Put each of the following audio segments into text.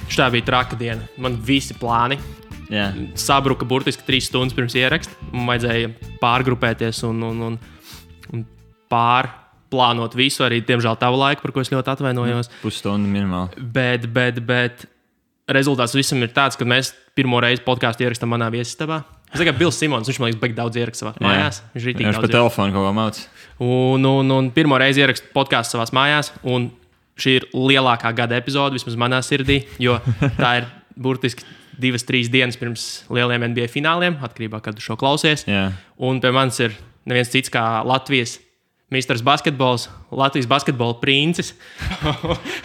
Šitā bija traka diena. Man visi plāni sabruka burtiski 3 stundas pirms ieraksta. Man vajadzēja pārgrupēties un pārplānot visu, arī, diemžēl, tavu laiku, par ko es ļoti atvainojos. Pusstundu minimāli. Bet rezultāts visam ir tāds, ka mēs pirmo reizi podcastu ierakstām manā viesistabā. Es tikai Bills Simons, viņš man liekas, baigi daudz ieraksta savās mājās. Viņš pa telefonu kaut ko māc. Un pirmo reizi ierakstu podcastu savās mājās, un šī ir lielākā gada epizode, vismaz manā sirdī, jo tā ir burtiski 2-3 dienas pirms lieliem NBA fināliem, atkarībā, kad tu šo klausies. Un pie manis ir neviens cits kā Latvijas Misters Basketbols, Latvijas basketbola princis.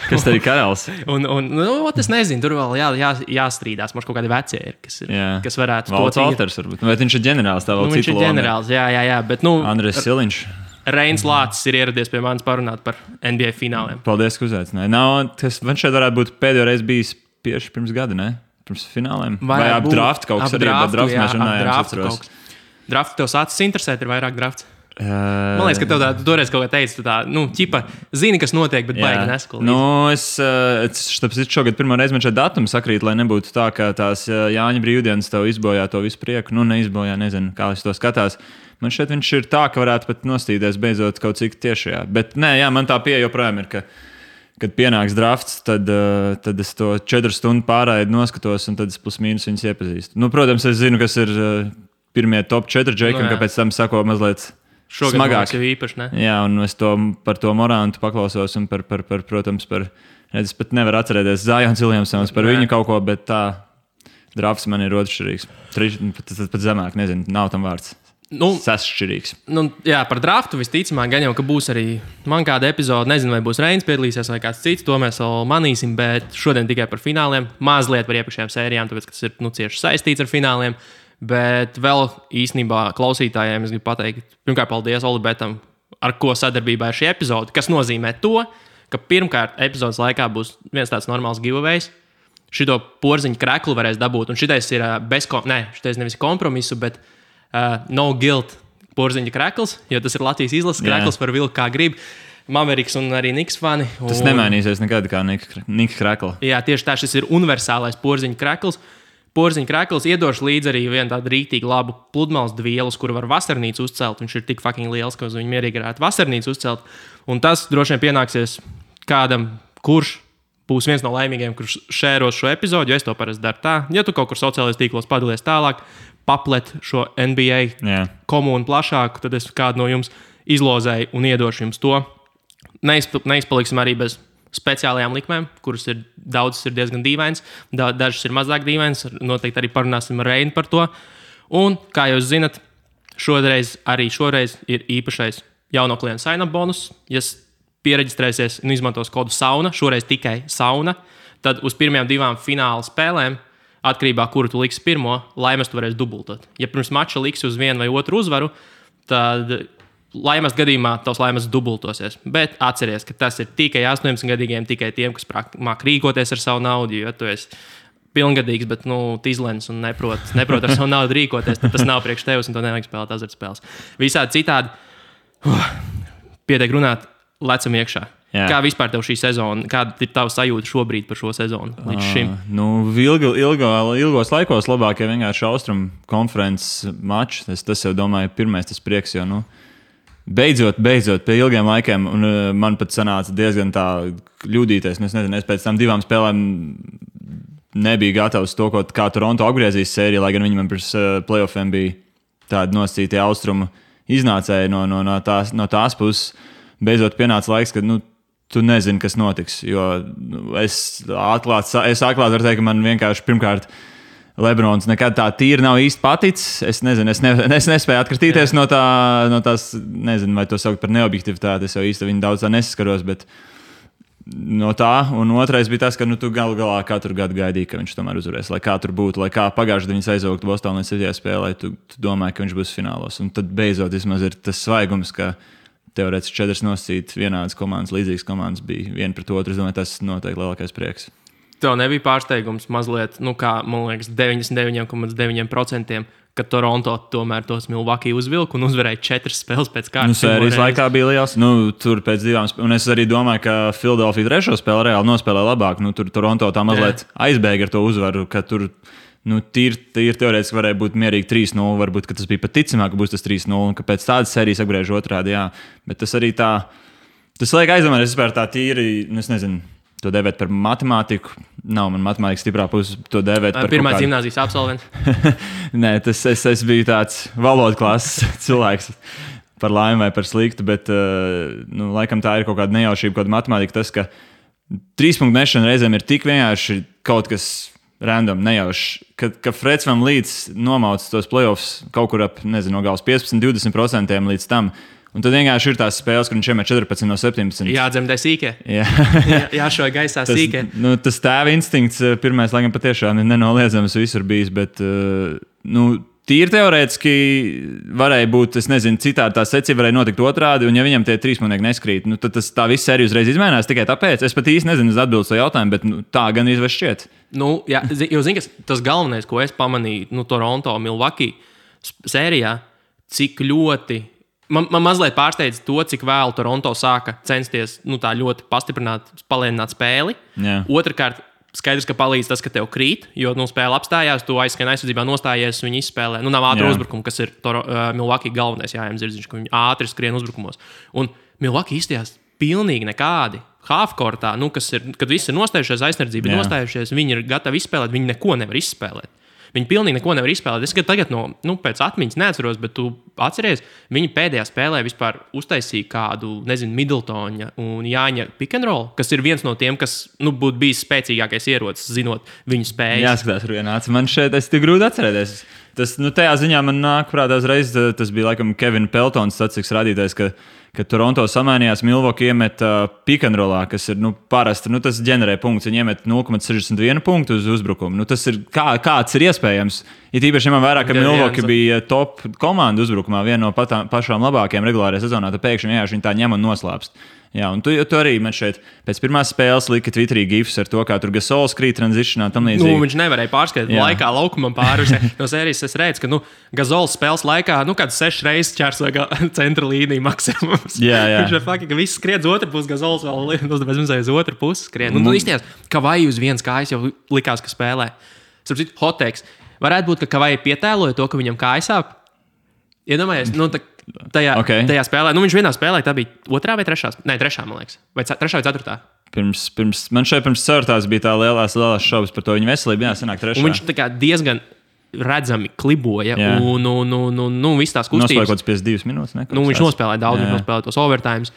Kas tad ir karalis? Es nezinu, tur vēl jāstrīdās. Mums kaut kādi vecie ir, kas varētu Valds Alters varbūt. Vai viņš ir ģenerālis? Tā vēl viņš ir ģenerālis, jā. Bet, Andrejs Siliņš. Reins Lācis ir ieradies pie manis parunāt par NBA fināliem. Paldies, ka uzaicināji. Man šeit varētu būt pēdējo reizi bijis tieši pirms gada, ne? Pirms fināliem. Vai ap draftu kaut kas arī, bet draftu mēs runājām. Draftu tev sācis interesēt, ir vairāk drafts? Man liekas, ka tev toreiz kaut kā teici, ķipa, zini, kas notiek, bet baigi neskolīs. Es šogad pirmo reizi man šeit datumi sakrīt, lai nebūtu tā, ka tās Jāņa brīvdienas tev izbojā to visu prieku. Neizbojā, nezinu, kā es to skatās. Man šeit viņš ir tā, ka varētu pat nostīties beidzot kaut cik tiešajā. Bet man tā pieeja joprojām ir, ka, kad pienāks drafts, tad es to 4 stundu pārraidi noskatos un tad es plus mīnus viņus iepazīstu. Protams, es zinu, kas ir pirmie top 4 džeki, un kāpēc tam sako mazliet smagāk. Īpaši, ne? Jā, un es par to Morantu paklausos un protams, es pat nevaru atcerēties Zajons Viljamsons par viņu kaut ko, bet tā drafts man ir otršķirīgs. Pat zemāk, nezinu, nav tam vārds. Sasšķirīgs. Par draftu visticamāk, gan jau, ka būs arī man kāda epizode. Nezinu, vai būs Reins piedalīsies vai kāds cits. To mēs vēl manīsim, bet šodien tikai par fināliem. Mazliet par iepriekšējām sērijām, tāpēc, ka tas ir cieši saistīts ar fināliem. Bet vēl īstenībā klausītājiem es gribu pateikt, pirmkārt, paldies Olibetam, ar ko sadarbībā ir šī epizode, kas nozīmē to, ka pirmkārt epizodes laikā būs viens tāds normāls giveaways. Šito porziņu kreklu varēs dabūt, un šitais ir šitais nevis kompromisu, bet no guilt porziņa krekls, jo tas ir Latvijas izlases krekls par vilku kā grib. Maveriks un arī Niks fani. Tas nemainīsies nekad kā Niks krekla. Jā, tieši tā, šis ir universālais porziņa krekls. Porziņa krekls iedošu līdzi arī vienu tādu rīktīgi labu pludmales dvielu, kuru var vasarnīcu uzcelt. Viņš ir tik fucking liels, ka uz viņu mierīgi varētu vasarnīcu uzcelt. Un tas droši vien pienāksies kādam, kurš būs viens no laimīgiem, kurš šēros šo epizodu, jo es to parasti daru tā. Ja tu kaut kur sociālajos tīklos padalies tālāk, paplet šo NBA komunu plašāku, tad es kādu no jums izlozēju un iedošu jums to. Neizpaliksim arī bez speciālajām likmēm, kuras ir daudzas ir diezgan dīvainas, dažas ir mazāk dīvainas, noteikti arī parunāsim ar Reinu par to. Un, kā jūs zinat, šoreiz ir īpašais jauno klientu sign-up bonus. Ja piereģistrēsies un izmantos kodu SAUNA, šoreiz tikai SAUNA, tad uz pirmajām 2 fināla spēlēm, atkarībā, kuru tu liksi pirmo, laimes tu varēsi dubultot. Ja pirms mača liksi uz vienu vai otru uzvaru, tad laimes gadījumā tavs laimes dubultosies. Bet atceries, ka tas ir tikai 18-gadīgiem, tikai tiem, kas māk rīkoties ar savu naudu, jo tu esi pilngadīgs, bet tīzlens un neprot ar savu naudu rīkoties, tad tas nav priekš tevis un to nevajag spēlēt azartspēles. Visādi citādi, pietiek runāt, lecam iekšā. Jā. Kā vispār tev šī sezona, kāda ir tava sajūta šobrīd par šo sezonu līdz šim? Ilgos laikos labākie vienkārši Austrumu konferences mači. Tas jau, domāju, pirmais tas prieks, jo, beidzot, pie ilgiem laikiem, un man pat sanāca diezgan tā ļudīties. Es nezinu, es pēc tam 2 spēlēm nebija gatavs to, kā Toronto apgriezīs sēriju, lai gan viņi man pirms playoffiem bija tādi nosacītie Austrumu iznācēji no tās puses. Beidzot pienāca laiks, kad, tu nezini, kas notiks, jo es atklāti varu teikt, ka man vienkārši pirmkārt Lebrons nekad tā tīri nav īsti paticis. Es nezinu, es nespēju atkritīties no tās, nezinu, vai to saukt par neobjektivitāti, es jau īsti viņu daudz tā nesaskaros, bet no tā, un otrais bija tas, ka tu galu galā katru gadu gaidīji, ka viņš tomēr uzvarēs, lai kā tur būtu, lai kā pagājušajā gadā viņš aizvāktu Bostonā līdz 7. spēlē, tu domāji, ka viņš būs finālos, un tad beidzot vismaz ir tas svaigums, ka teorētiski 4 nosacīt vienādas komandas, līdzīgas komandas bija viena pret otru. Es domāju, tas noteikti lielākais prieks. Tev nebija pārsteigums mazliet, kā man liekas, 99,9%, ka Toronto tomēr tos Milwaukee uzvilka un uzvarēja 4 spēles pēc kārtas. Sērijas laikā bija liels. Tur pēc 2, un es arī domāju, ka Philadelphia 3. spēli reāli nospēlēja labāk. Tur Toronto tā mazliet aizbēga ar to uzvaru, ka tur tīri teorētiski varēja būt mierīgi 3-0. Varbūt tas bija pat ticamāk, ka būs tas 3-0, un ka pēc tādas sērijas apgriež otrādi. Jā. Bet tas arī tā, tas liek aizdomāties vispār tā tīri, es nezinu. To dēvēt par matemātiku. Nav man matemātika stiprā puse. To dēvēt par pirmā gimnāzijas absolvents. Nē, es biju tāds valodas klases cilvēks. Par laimi vai par sliktu, bet laikam tā ir kaut kāda nejaušība, kaut kāda matemātika. Tas, ka 3 punktu mešana reizēm ir tik vienkārši kaut kas random, nejauši. Ka Freds Van Līdz nomauc tos playoffs kaut kur ap, nezinu, no galas 15-20% līdz tam. Un tad vienkārši ir tās spēles, kur viņš iemet 14 no 17. Jādzemdē sīkē. Jāšauj gaisā sīkē. Tas tēva instinkts pirmais, laikam, patiešām ir nenoliedzams visur bijis, bet tīri teorētiski varēja būt, es nezinu, citādi tā secība varēja notikt otrādi, un ja viņam tie 3 punkti neskrīt, tad tā viss sērija uzreiz izmainās tikai tāpēc. Es pat īsti nezinu atbildes to jautājumu, bet tā gan izveš šķiet. Jā, jo zini, tas galvenais, ko es pamanīju Toronto, Milwaukee sērijā, cik ļoti Man mazliet pārsteidz to, cik vēlu Toronto sāka censties tā ļoti palēnināt spēli. Yeah. Otrakārt, skaidrs, ka palīdz tas, ka tev krīt, jo spēle apstājās, tu aizskrien aizsardzībā nostājies, viņi izspēlē. Nav ātri uzbrukumi, kas ir Milwaukee galvenais jājām zirdziņš, ka viņi ātri skrien uzbrukumos. Un Milwaukee izstījās pilnīgi nekādi. Halfcourtā, kas ir, kad visi ir nostājušies aizsardzībā, nostājušies, viņi ir gatavi izspēlēt, viņi neko nevar izspēlēt. Viņi pilnīgi neko nevar izspēlēt. Es tagad pēc atmiņas neatceros, bet tu atceries, viņi pēdējā spēlē vispār uztaisīja kādu, nezinu, Middletona un Jāņa pick and roll, kas ir viens no tiem, kas būtu bijis spēcīgākais ierocis, zinot viņu spējas. Jāskatās, Rujānāts. Man šeit tas tik grūti atcerēties. Tas, tajā ziņā man nāk prātā uzreiz, tas bija laikam Kevina Peltons statistikas rādītājs, ka Toronto samainījās, Milwaukee iemet pick and rollā, kas ir parasti, tas ģenerē punktus. Viņi iemet 0,61 punktu uz uzbrukumu. Tas ir kāds ir iespējams. Ir īpaši ņemam vērā, ka Milwaukee bija top komanda uzbrukumā, viena no pašām labākajām regulārajā sezonā. Tad pēkšņi viņi tā ņem un noslēpst. Jā, un tu arī man šeit pēc pirmās spēles lika Twitterī gifs ar to, kā tur Gasols krīt transitionā tam līdzīgi. Viņš nevarēja pārskatīt laikā laukumam pāri. No sērijas es redzu, ka Gasols spēles laikā kāds 6 reizes ķērsoja centra līniju maksimums. Jā. Viņš ir fakti, ka viss skrien uz otru pusi, Gasols vēl uz otru pusi skrien. Tu izties, ka vai uz vienas kājas jau likās, ka spēlē. Sapratu, hoteiks. Varētu būt, ka Kavai pietēloja to, ka viņam kājas sāp. Iedomājies, tajā spēlē. Viņš vienā spēlē, tā bija 2. vai 3. Nē, 3. man liekas. Vai 3. vai 4. Man šeit pirms 4. bija tā lielās šaubas par to viņa veselību. Jā, sanāk 3. Un viņš diezgan redzami kliboja. Un viss tās kustības. Nospēlēja kaut kāds 52 minūtes. Viņš nospēlēja daudz, viņš nospēlēja tos overtimes.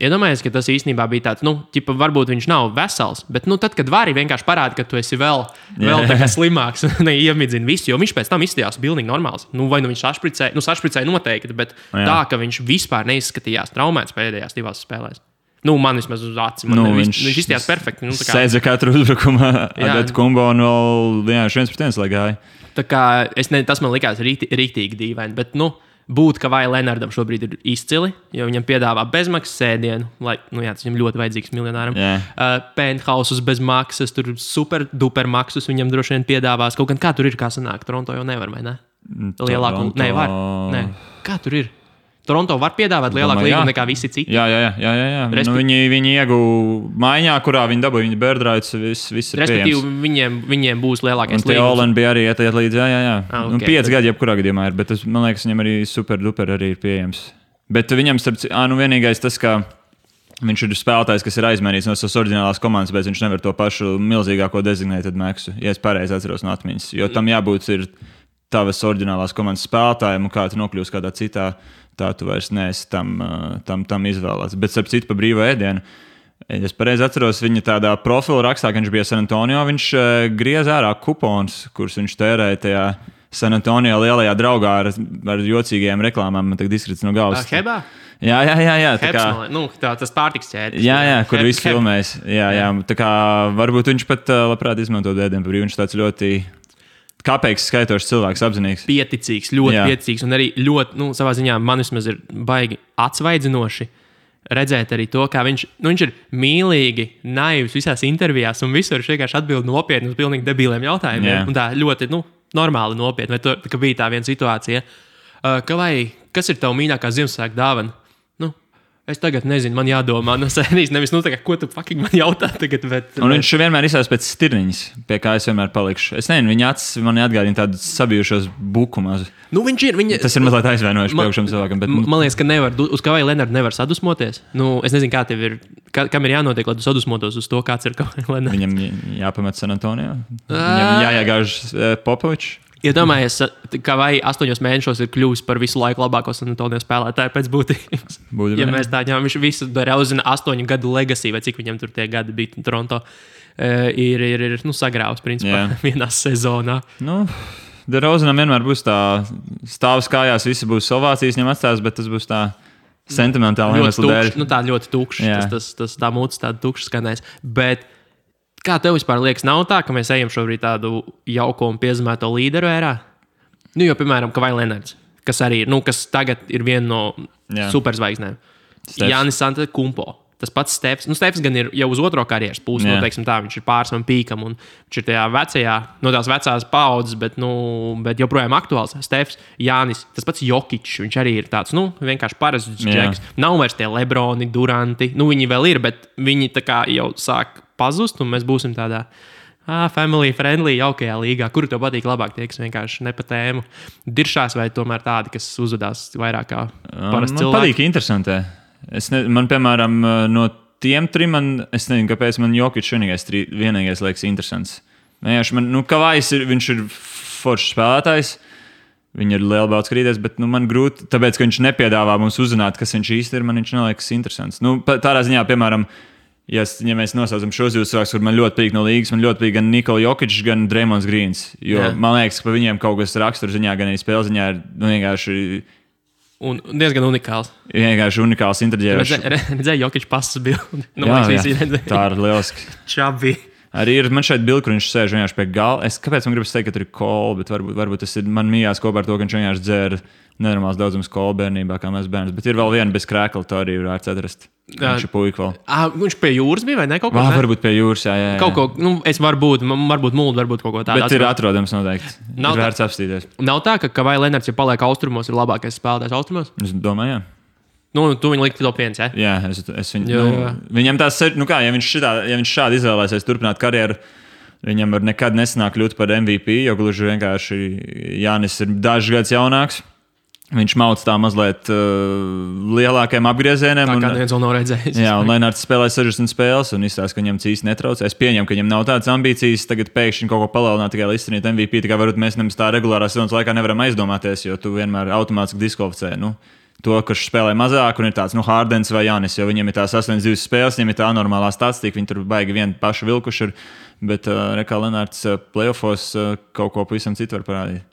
Iedomājies, ka tas īstenībā bija tāds, varbūt viņš nav vesels, bet tad, kad vari vienkārši parāda, ka tu esi vēl slimāks, neiemidzina visu, jo viņš pēc tam izstījās pilnīgi normāls. Vai viņš sašpricēja noteikti, bet tā, ka viņš vispār neizskatījās traumēts pēdējās 2 spēlēs. Man vismaz uz acīm. Viņš izstījās perfekti. Sēdza katru uzbrukumu, Adetu Kumbo un vēl 1-1 lai gāja. Tā kā tas man likās rīktīgi dīvaini, bet būt, ka vai Lenardam šobrīd ir izcili, jo viņam piedāvā bezmaksas sēdienu, lai, tas viņam ļoti vajadzīgs miljonāram. Penthouses bez maksas, tur super duper maksas viņam droši vien piedāvās. Kaut gan kā tur ir, kā sanāk, Toronto jau nevar, vai ne? Lielāku, var. Nē. Kā tur ir? Toronto var piedāvāt lielāku līgumu nekā visi citi. Jā. Viņi ieguva maiņā, kurā viņi dabūja viņa birdrights, viss ir respektīvi, viņiem būs lielākais līgums. Un Teolen bija arī iet līdz, jā. 5 gadi jebkurā gadījumā ir, bet tas, man liekas, viņam arī super duper arī ir pieejams. Bet viņam, vienīgais tas, ka viņš ir spēlētājs, kas ir aizmainīts no savas oriģinālās komandas, bet viņš nevar to pašu milzīgāko designētad maksu, ja es pareizi atceros no atmiņas. Jo tam jābūt ir tavas oriģinālās komandas spēlētājiem, un kā tu nokļūsi kādā citā, tā tu vairs neesi tam izvēlēts. Bet, starp citu, pa brīvo ēdienu, es pareizi atceros, viņa tādā profila rakstā, ka viņš bija San Antonio, viņš griez ārā kupons, kurus viņš tērēja tajā San Antonio lielajā draugā ar jocīgajām reklāmām. Man tagad izkrits no galvas. Hebā? Jā. Tas pārtiks ķēdes. Jā, kur viss filmēs. Jā. Tā kā varbūt viņš pat labprāt izmantot ēdienu pa brīvu. Viņš tāds ļoti kāpēc skaitošs cilvēks, apzinīgs. Pieticīgs, ļoti pieticīgs un arī ļoti, savā ziņā man vismaz ir baigi atsvaidzinoši, redzēt arī to, kā viņš ir mīlīgi, naivs visās intervijās, un visur viņš vienkārši atbild nopietni uz pilnīgi debiliem jautājumiem. Yeah. Un tā ļoti normāli nopietni. Vai ka bija tā viena situācija, kas ir tava mīļākā Ziemassvētku dāvana? Es tagad nezinu, man jādomā, nevis ko tu fucking man jautā tagad. Un viņš vienmēr izsauc pēc stirniņas, pie kā es vienmēr palikšu. Es nezinu, viņa acis man atgādina tādu sabijušos bukumus. Tas ir mazliet aizvainojuši priekšam cilvēkam. Bet... Man liekas, ka uz Kavaju Lenardu nevar sadusmoties. Es nezinu, kā tev ir, kam ir jānotiek, lai tu sadusmotos uz to, kāds ir Kavaju Lenards. Viņam jāpamet San Antonio. Viņam jāiegāž Popovičs. Iedomājies, ka vai 8 mēnešos ir kļuvis par visu laiku labāko San Antonio spēlētāju pēc būtības. Ja mēs tā ņemam, viņš visu Derauzina 8 gadu legacy, vai cik viņam tur tie gadi bija Toronto, ir sagrāvs principā vienā sezonā. Derauzinam vienmēr būs tā stāvs kājās, visi būs ovācijas viņam atstās, bet tas būs tā sentimentāli iemeslu dēļ. Tā ļoti tukšs, tā mūcis tāda tukša skanēs. Bet kā tev vispār liekas, nav tā, ka mēs ejam šobrīd tādu jauko un piezīmēto līderu ērā? Jo, piemēram, Kavai Lenards, kas arī ir, kas tagad ir viena no superzvaigznēm. Jānis Antetokounmpo. Tas pats Stefs. Stefs gan ir jau uz otro karjeras pusi, teiksim tā, viņš ir pārsvam pīkam un viņš ir tajā vecajā, no tās vecās paudzes, bet joprojām aktuāls. Stefs, Jānis, tas pats Jokičs, viņš arī ir tāds, vienkārši parasts džeks. Nav vairs tie Lebroni, Duranti, viņi vēl ir, bet viņi tā kā jau sāk pazust, un mēs būsim tādā family friendly, jaukajā līgā. Kuru tev patīk labāk, tie, kas vienkārši ne pa tēmu diršās, vai tomēr tādi, kas uzvedās vairāk kā parasti cilvēki? Man patīk interesantē. Man, piemēram, no tiem trim, es nezinu, kāpēc man Jokičs vienīgais liekas interesants. Kavajs viņš ir foršs spēlētājs, viņi ir liela baudas krīties, bet man grūti, tāpēc, ka viņš nepiedāvā mums uzzināt, kas viņš īsti ir, man viņš neliekas interesants. Tādā ziņā, piemēram, ja mēs nosaucam šos divus cilvēkus, kur man ļoti patīk no līgas, man ļoti patīk gan Nikola Jokičs, gan Draymonds Greens. Jo man liekas, ka par viņiem kaut kas raksturziņā, gan arī spēlziņā ir vienkārši... Un diezgan unikāls. Vienkārši unikāls interģērs. Redzēju Jokičs pasas bildi. Tā ir lieliski. Čabi. Arī ir man šeit bildi, kur viņš sēž vienkārši pie gala. Kāpēc man gribas teikt, ka tur ir kola, bet varbūt tas ir man mījās kopā ar to, ka viņš vienkārši dzēra nenormāls daudzums kola bērnībā, kā mēs bērnus. Bet ir vēl viena bez krēkla, to arī varētu atrast. Viņš ir puika vēl. Viņš pie jūras bija vai ne? Kaut ko varbūt pie jūras, jā. Kaut ko, es varbūt muldu, varbūt kaut ko tādu. Bet ir atrodams noteikti. Ir vērts apstīties. Nav tā, ka Kavai Lenards, ja paliek austrumos, ir labākais spēlētājs austrumos? Es domāju, jā. Tu viņu likti top 1, ja? Jā, es viņu... Viņam tās ir, ja viņš šādi izvēlēsies turpināt karjeru, viņam var nekad nesanāk kļūt par MVP, jo gluži vienkārši Jānis ir dažs gads jaunāks. Viņš mauc tā mazliet lielākiem apgriezieniem. Tā kā neviens vēl nav redzējis. Jā, un Lenards spēlē 60 spēles un izstāsta, ka viņam cīs netraucē. Es pieņemu, ka viņam nav tādas ambīcijas tagad pēkšņi kaut ko palielināt, tikai lai izcīnītu MVP. Tā kā varbūt mēs nemaz tā regulārā sezonas laikā nevaram aizdomāties, jo tu vienmēr automātiski diskvalificē. To, kurš spēlē mazāk un ir tāds Hardens vai Jānis, jo viņam ir tās 8-2 spēles, viņam ir tā normālā statistika, viņi tur baigi vienu pašu vilkuši ir, bet Rekā Lenards playoffos kaut ko pavisam citu var parādīt.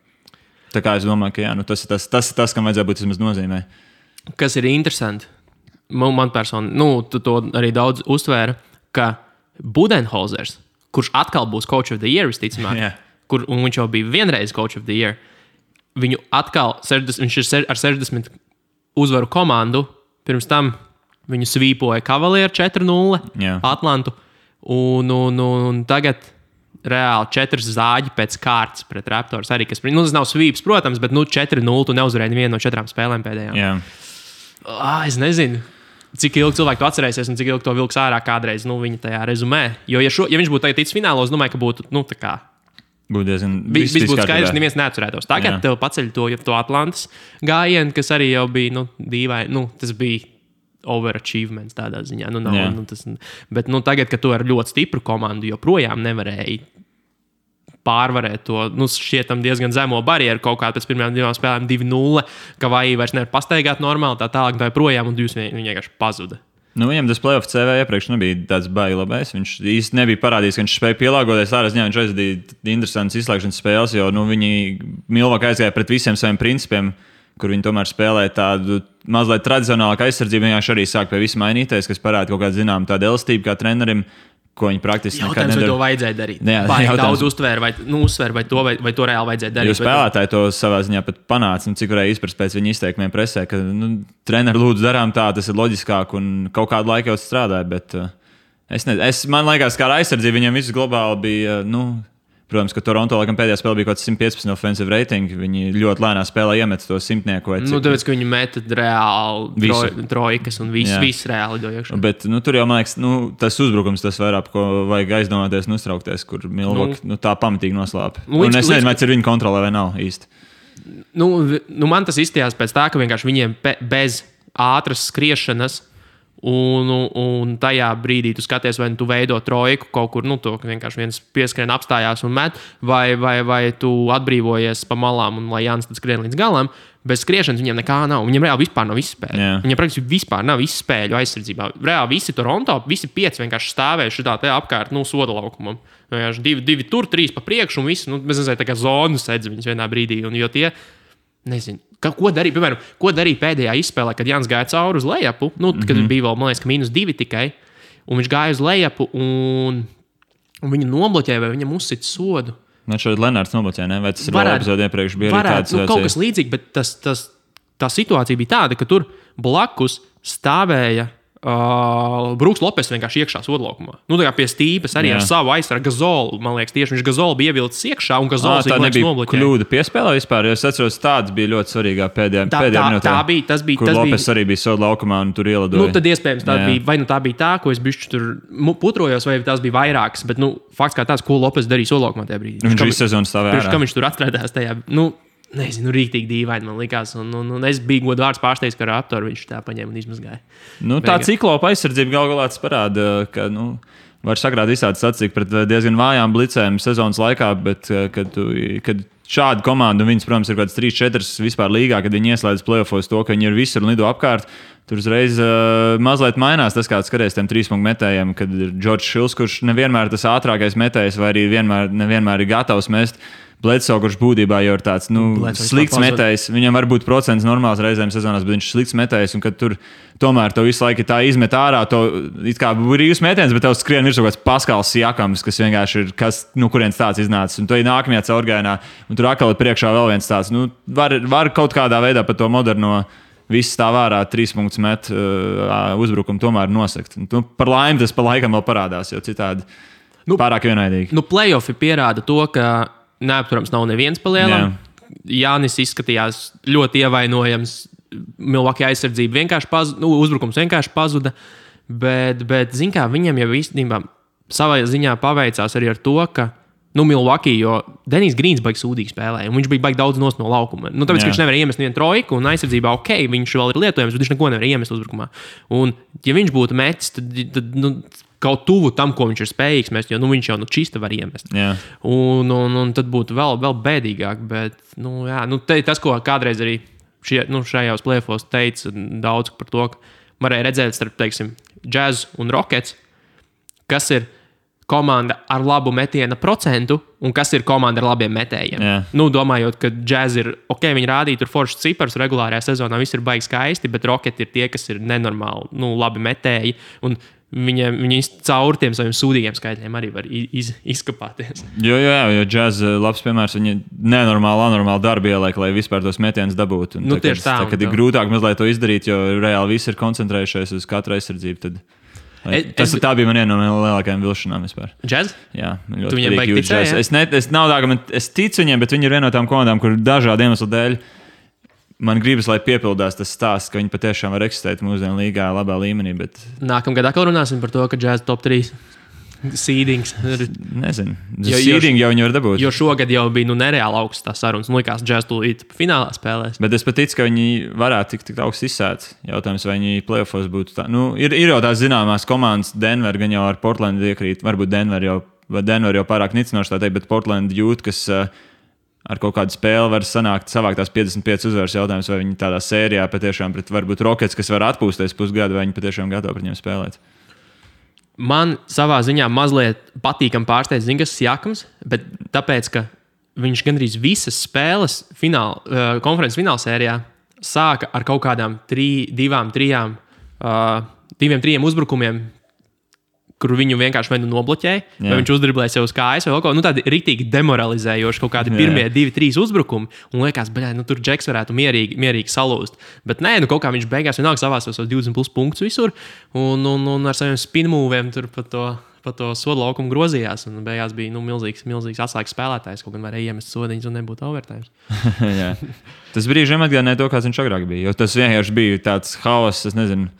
Tā kā es domāju, ka jā, tas ir tas, kam vajadzētu būt vismaz nozīmē. Kas ir interesanti, man personīgi, tu to arī daudz uztvēra, ka Budenholzers, kurš atkal būs Coach of the Year visticamāk, un viņš jau bija vienreiz Coach of the Year, viņu atkal, viņš ir ar 60 uzvaru komandu, pirms tam viņu svīpoja Cavalier 4-0 Atlantu, un tagad reāli 4 zāģi pēc kārtas pret Raptors arī, kas, tas nav svīps, protams, bet 4-0 tu neuzvarēji nevienu no 4 spēlēm pēdējām. Es nezinu, cik ilgi cilvēki to atcerēsies un cik ilgi to vilks ārā kādreiz, viņa tajā rezumē. Jo, ja viņš būtu tagad ticis finālos, domāju, ka būtu, tā kā... Viss būtu skaidrs, neviens neatcerētos. Tagad tev paceļ to Atlantas gājienu, kas arī jau bija, dīvaini, tas bija overachievements tādā ziņā. Bet tagad, kad tu ar ļoti stipru komandu joprojām nevarēji pārvarēt to šķietam diezgan zemo barjeru kaut kā pēc pirmajām 2 spēlēm 2-0, ka vai vairs nevar pastaigāt normāli, tā tālāk tā joprojām, un viņi vienkārši pazuda. Viņam tas playoff CV iepriekš nebija tāds baigi labais. Viņš īsti nebija parādījis, ka viņš spēja pielāgoties. Tādā ziņā viņš aizvadīja interesantas izslēgšanas spēles, jo viņi Milwaukee aizgāja pret visiem saviem principiem, kur viņi tomēr spēlēja tādu mazliet tradicionālāku aizsardzību. Viņš arī sāk pie visa mainīties, kas parāda kaut kādu zināmu tādu elastību kā trenerim, ko viņi praktiski nekad nedara. Vai to vajadzēja darīt? Vai daudz uztvēra, vai to reāli vajadzēja darīt? Jo spēlētāji to savā ziņā pat panāca, cik varēja izprast pēc viņa izteikumiem presē, ka treneri lūdzu darām tā, tas ir loģiskāk un kaut kādu laiku jau strādāja, bet man liekas, kā ar aizsardzību viņam viss globāli bija, protams, ka Toronto laikam pēdējā spēlē bija kaut kāds 115 offensive rating. Viņi ļoti lēnā spēlē iemet to simtnieku. Tāpēc, ka viņi meta reāli trojkas un viss reāli dojuši. Bet tur jau, man liekas, tas uzbrukums, tas vairāk, ko vajag aizdomāties un uztraukties, kur Milwaukee tā pamatīgi noslēpa. Un es nezinu, vai tas ir viņa kontrolē vai nav īsti. Man tas izstījās pēc tā, ka vienkārši viņiem bez ātras skriešanas un tajā brīdī tu skaties, vai tu veido trojku kaut kur, to vienkārši viens pieskrien apstājās un met, vai tu atbrīvojies pa malām un lai Jānis tad skrien līdz galam. Bez skriešanas viņiem nekā nav. Viņiem reāli vispār nav izspēļu. Yeah. Viņiem praktiski vispār nav izspēļu aizsardzībā. Reāli visi Toronto, visi 5 vienkārši stāvējuši šitā te apkārt, soda laukumam. Divi tur, 3 pa priekšu un visi, mēs nezinu, tā kā zonu sedz viņus vienā brīdī. Un jo tie, nezinu, ko darīja, piemēram, pēdējā izspēlē, kad Jānis gāja cauri uz lejapu, kad bija vēl, man liekas, ka -2 tikai, un viņš gāja uz lejapu un viņu nobloķēja, vai viņam uzsita sodu. Man šeit Lenārds nobloķēja, ne? Vai tas ir vēl epizode iepriekš bija arī tāds? Kaut kas līdzīgi, bet tā situācija bija tāda, ka tur blakus stāvēja Brooks Lopes vienkārši iekšā sodlaukumā. Tā kā pie stīpes arī ar savu aizsargu Gazolu. Man liekas, tieši viņš Gazolu bija ievilcis iekšā un Gazols tā nebija kļūda piespēlē vispār, jo es atceros, tāds bija ļoti svarīgā pēdējā minūtē. Tas bija. Kur Lopes arī bija sodlaukumā un tur ielidoja. Tad iespējams tā bija, vai tā bija tā, ko es bišķi tur putrojos, vai tās bija vairākas, bet fakts kā tāds, ko Lopes darīja sodlaukumā tajā brīdī. Viņš visu sezonu stāvēja ārā. Kā viņš tur atradās tajā, nezinu, rīktīgi dīvaini man likās. Un es biju godu vārds pārsteigts, ka Raptori viņš tā paņēma un izmazgāja. Tā ciklopa aizsardzība galā parāda, ka var sagrāt visādi sacīk pret diezgan vājām blicēm sezonas laikā, bet kad šāda komanda, un viņas, protams, ir kāds 3-4 vispār līgā, kad viņi ieslēdz playoffos to, ka viņi ir visur un lido apkārt, tur uzreiz mazliet mainās tas, kāds skaties tiem 3-punktu metējiem, kad ir Džordžs Šils, kurš nevienmēr tas ātrākais metējs, vai arī nevienmēr ir gatavs mest. Bledsoe, kurš būtībā jau ir tāds slikts metējs. Viņam var būt procents normāls reizēm sezonās, bet viņš ir slikts metējs. Un kad tur tomēr to visu laiku tā izmet ārā, to it kā brīvs metiens, bet tev skrien virsū kāds Paskals Siakams, kas vienkārši ir, kurienes tāds iznācis. Un to ir nākamajā caurgājienā, un tur atkal ir priekšā vēl viens tāds. Var kaut kādā veidā par to moderno viss tā vārā 3 punktus met uzbrukumu tomēr nosakt. Par laimi tas pa laikam vēl parādās, jo citādi pārāk vienaidīgi. Playoffi pierāda to, ka neapturams nav neviens pa lielam. Jānis izskatījās ļoti ievainojams. Milwaukee aizsardzība vienkārši pazuda, uzbrukums vienkārši pazuda. Bet zin kā, viņam jau īstenībā savā ziņā paveicās arī ar to, ka Milwaukee, jo Denijs Grīns baigi sūdīgi spēlēja, un viņš bija baigi daudz no laukuma. Tāpēc, ka viņš nevar iemest nevienu trojku, un aizsardzībā viņš vēl ir lietojams, bet viņš neko nevar iemest uzbrukumā. Un, ja viņš būtu metis, tad kaut tuvu tam, ko viņš ir spējīgs mest, jo viņš jau čista var iemest. Un tad būtu vēl bēdīgāk. Bet, tas, ko kādreiz arī šajos playoffos teica daudz par to, ka varēja redzēt starp, teiksim, Jazz un Rockets, kas ir komanda ar labu metiena procentu un kas ir komanda ar labiem metējiem. Domājot, ka Jazz ir, viņi rādīja tur foršas cipars regulārajā sezonā, viss ir baigi skaisti, bet Rocket ir tie, kas ir nenormāli, labi metēji, un viņi caur tiem saviem sūdīgiem skaitļiem arī var izkapāties. Jo Jazz labs piemērs, viņi anormāli darbu ieliek, lai vispār tos metienus dabūtu. Tieši tā. Kad ir grūtāk mazliet to izdarīt, jo reāli visi ir koncentrējušies uz katru aizsardzību, tad tā bija viena no lielākajām vilšanām vispār. Jazz? Jā, tu viņiem baigi ticēji? Es ticu viņiem, bet viņi ir viena no tām komandām, kur dažādu iemeslu dēļ man gribas, lai piepildās tas stāsts, ka viņi patiešām var eksistēt mūsdienu līgā labā līmenī. Bet nākamgad atkal runāsim par to, ka Jazz top 3 seedings. Nezinu. Seeding jau viņi var dabūt. Jo šogad jau bija nereāli augsts tā sarunas. Likās, Jazz tūlīt finālā spēlēs. Bet es pat ticu, ka viņi varētu tikt augsts izsēts. Jautājums, vai viņi playoffos būtu tā. Ir jau tās zināmās komandas, Denver gan jau ar Portlandu iekrīt. Varbūt Denver jau pārāk nicinoši tā teikt, bet Portland jūt, kas ar kaut kādu spēli var savākt tās 55 uzvaras. Jautājums, vai viņi tādā sērijā patiešām pret varbūt Rockets, kas var atpūsties pusgadu, vai viņi patiešām gatavi pret viņiem spēlēt. Man savā ziņā mazliet patīkam pārsteidz Zingas Siakams, bet tāpēc, ka viņš gandrīz visas spēles konferences finālsērijā sāka ar kaut kādām 2-3 uzbrukumiem, kur viņu vienkārši vai nu nobloķēja, vai viņš uzdriblēja sev uz kājas, vai kaut ko tādu rītīgi demoralizējoši, kaut kādi pirmie 2-3 uzbrukumi. Un liekas, tur Džeks varētu mierīgi salūzt. Bet nē, kaut kā viņš beigās vienalga savās 20+ punktus visur, un ar saviem spinmūviem tur pa to sodu laukumu grozījās. Un beigās bija milzīgs atslēgas spēlētājs, kaut gan varēja iemest sodiņus un nebūtu overtime. Tas brīžiem atgādināja to, kāds viņš agrāk bija. Jo tas vienkārši bija tāds haoss, es nezinu.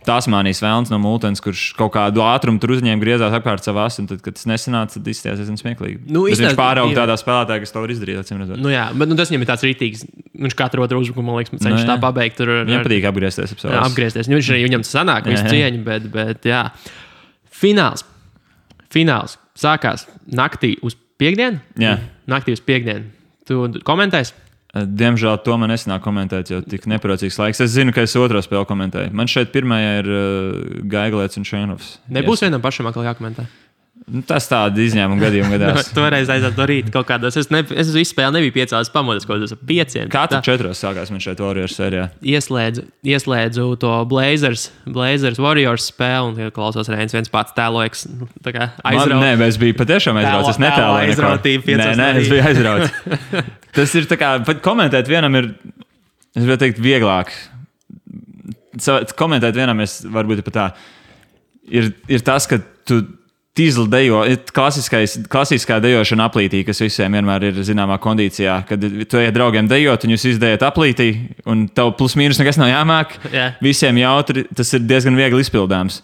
Tasmānijas vēlns no Multens, kurš kaut kādu ātrumu tur uzņēma, griezās apkārt savās, un tad, kad tas nesanāca, tad izstājās smieklīgi. Viņš pārauga tādā spēlētājā, kas to var izdarīt. Bet tas viņam ir tāds rītīgs. Viņš katru otru uzbrukumu, man liekas, cenšas tā pabeigt. Viņam patīk apgriezties. Apgriezties. Viņš arī viņam tas sanāk, visu cieņu, bet jā. Fināls sākās naktī uz piekdienu? Jā. Naktī uz piekdienu. Tu komentēsi? Diemžēl to man nesanāk komentēt, jo tik neprocīgs laiks. Es zinu, ka es otro spēli komentēju. Man šeit pirmajā ir Gaiglēts un Šēnovs. Nebūs vienam pašam atkal jākomentē? Tas tāda izņēmuma gadījuma gadās. Toreiz aiziet no rīta kaut kādos. Es visu spēli nebiju piecās pamodis, kaut kādos 5. Katru 4 sākās man šeit Warriors sērijā. Ieslēdzu to Blazers Warriors spēli un klausos Reins viens pats tēlojas. Nē, es biju patiešām aizrauts. Es netēloju aizrautību 5. Nē, es biju aizrauts. Tas ir tā kā, komentēt vienam ir, es varu teikt, vieglāk. Komentēt vienam varbūt pat tā. Ir tas, ka tu tīzli dejo, klasiskā dejošana aplītī, kas visiem vienmēr ir zināmā kondīcijā, kad tu ejat draugiem dejot un jūs izdejat aplītī un tev plus mīnus nekas nav jāmāk. Visiem jautri, tas ir diezgan viegli izpildāms.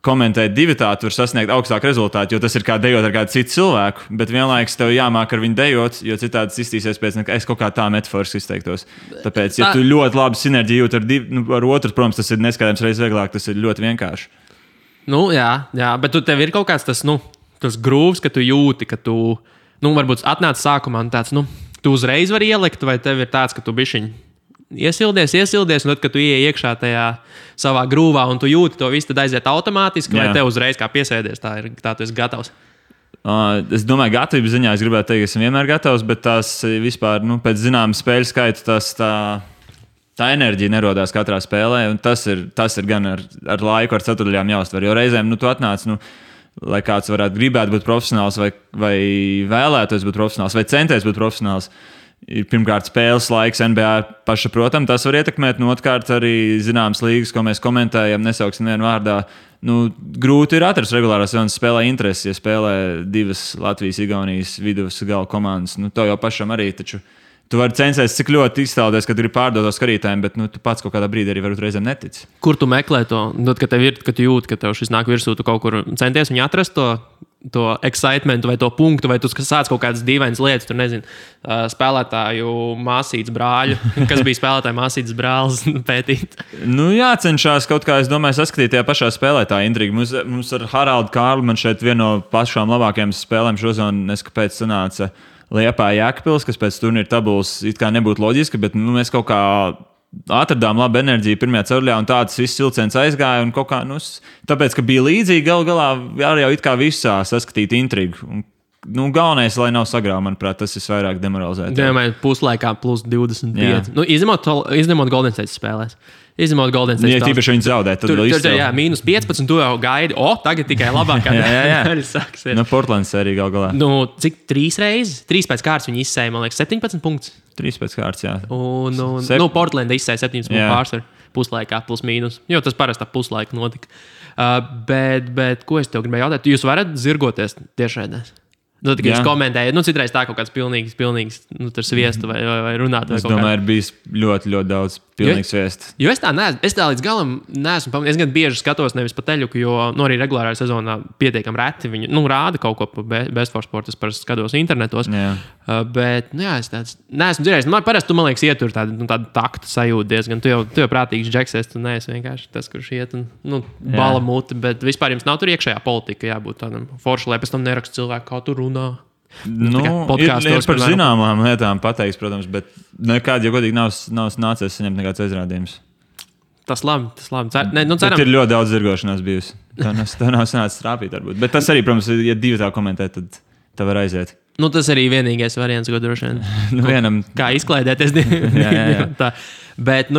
Komentēt divatā, tu vari sasniegt augstāku rezultātu, jo tas ir kā dejot ar kādu citu cilvēku, bet vienlaikus tev jāmāk ar viņu dejot, jo citādi tas iztīsies pēc, ka es kaut kā tā metaforiski izteiktos. Tāpēc, ja tu ļoti labi sinerģiju jūt ar otru, protams, tas ir neskaidrs reizes vieglāk, tas ir ļoti vienkārši. Jā, bet tev ir kaut kāds tas grūvs, ka tu jūti, ka tu, varbūt atnāc sākumā un tāds, tu uzreiz vari ielikt, vai tev ir tāds, ka tu bišķiņ iesildies, un tad, kad tu ieej iekšā tajā savā grūvā un tu jūti to visu, tad aiziet automātiski, vai tev uzreiz kā piesēdies, tā tu esi gatavs? Es domāju, gatavības ziņā es gribētu teikt, ka esmu vienmēr gatavs, bet tās vispār, pēc zināma spēļu skaita, tā enerģija nerodās katrā spēlē, un tas ir gan ar laiku, ar ceturdaļām jāuztver, jo reizēm, tu atnāc, lai kāds varētu gribēt būt profesionāls, vai vēlētos būt profesionāls, vai centies būt profesionāls. Ir pirmkārt spēles laiks NBA pašsaprotam, tas var ietekmēt, un otrkārt arī zināmas līgas, ko mēs komentējam, nesauksim vienu vārdā. Grūti ir atrast regulārās sezonas spēlē interesi, ja spēlē 2 Latvijas, Igaunijas vidus gala komandas. To jau pašam arī, taču tu vari censties, cik ļoti iztēloties, ka tu gribi pārdot to skatītājiem, bet tu pats kaut kādā brīdī arī varbūt reizēm netici. Kur tu meklē to? Kad tu jūti, ka tev šis nāk virsū, tu kaut kur centies viņu atrast to excitementu vai to punktu, vai tu sāc kaut kādas dīvainas lietas, tur nezinu, spēlētāju māsītes brāļu, kas bija spēlētāju māsītes brālis pētīt. Jācenšas kaut kā, es domāju, saskatīt tajā pašā spēlē tā intriga. Mums ar Haraldu Kārlu man šeit viena no pašām labākajām spēlēm šozonu, neskapēc sanāca Liepāja Jēkabpils, kas pēc turnīra tabulas it kā nebūtu loģiski, bet mēs kaut kā atradām labu enerģiju pirmajā ceturdaļā, un tāds viss vilciens aizgāja. Un kaut kā, tāpēc, ka bija līdzīgi, galā arī jau it kā visā saskatīt intrigu. Galvenais, lai nav sagrāva, manuprāt, tas ir vairāk demoralizēti. Domāju, puslaikā plus 25. Izņemot Golden State spēlēs. Izņemot Golden State. Ja tīpaši viņi zaudē, tad vēl izcēl. Jā, minus 15, tu jau gaidi. Tagad tikai labākā. jā. Portlands sērija galā. Cik 3 reizes? 3 pēc kārtas viņi izsēja, man liekas, 17 punktus. 3 pēc kārtas, jā. Portlanda izsēja 17 punktu pārsvaru puslaikā, plus mīnus. Jo tas parasti puslaika notika. Bet ko es tev gribēju jautāt? Jūs varat zirgoties tiešraidēs? Tad, kad jūs komentējat, citreiz tā kaut kāds pilnīgs sviestu vai runāt. Es domāju, ir bijis ļoti, ļoti daudz pilnīgs sviestu. Jo es tā līdz galam neesmu pamanījis. Es gan bieži skatos nevis pa teļuku, jo arī regulārā sezonā pietiekami reti viņi rāda kaut ko pa Best for Sport. Es parasti skatos internetos. Bet, es tāds neesmu dzirdējis. Parasti tu, man liekas, ietur tādu taktu sajūtu diezgan. Tu jau prātīgs džeksies, tu neesi vienkārši tas, kurš iet un bala muti. Bet vispār jums nav tur iekšējā politika jābūt tādam foršu, lai pēc tam nerakstu cilvēku, kā tur runā. Ir par zināmām lietām pateiks, protams, bet nekādi, ja godīgi, nav nācies saņemt nekāds aizrādījums. Tas labi. Bet ir ļoti daudz zirgošanās bijusi. Tā nav sanācis trāpīt, varbūt. Bet tas arī, protams, ja 2 tā komentē, tad tā var aiziet. Tas arī vienīgais variants, ko droši vien. Vienam. Kā izklaidēties. jā. Bet,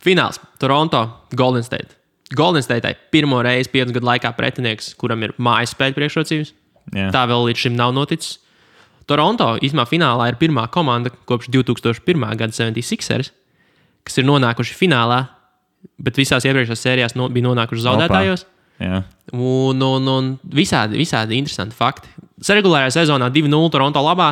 fināls. Toronto, Golden State. Golden State pirmo reizi 5 gadu laikā pretinieks, kuram ir mājas spēļu priekšrocības. Jā. Tā vēl līdz šim nav noticis. Toronto īstenībā finālā ir pirmā komanda kopš 2001. gada 76ers, kas ir nonākuši finālā, bet visās iepriekšējās sērijās bija nonākuši zaudētājos. Jā. Un visādi interesanti fakti. Regulārajā sezonā 2-0 Toronto labā,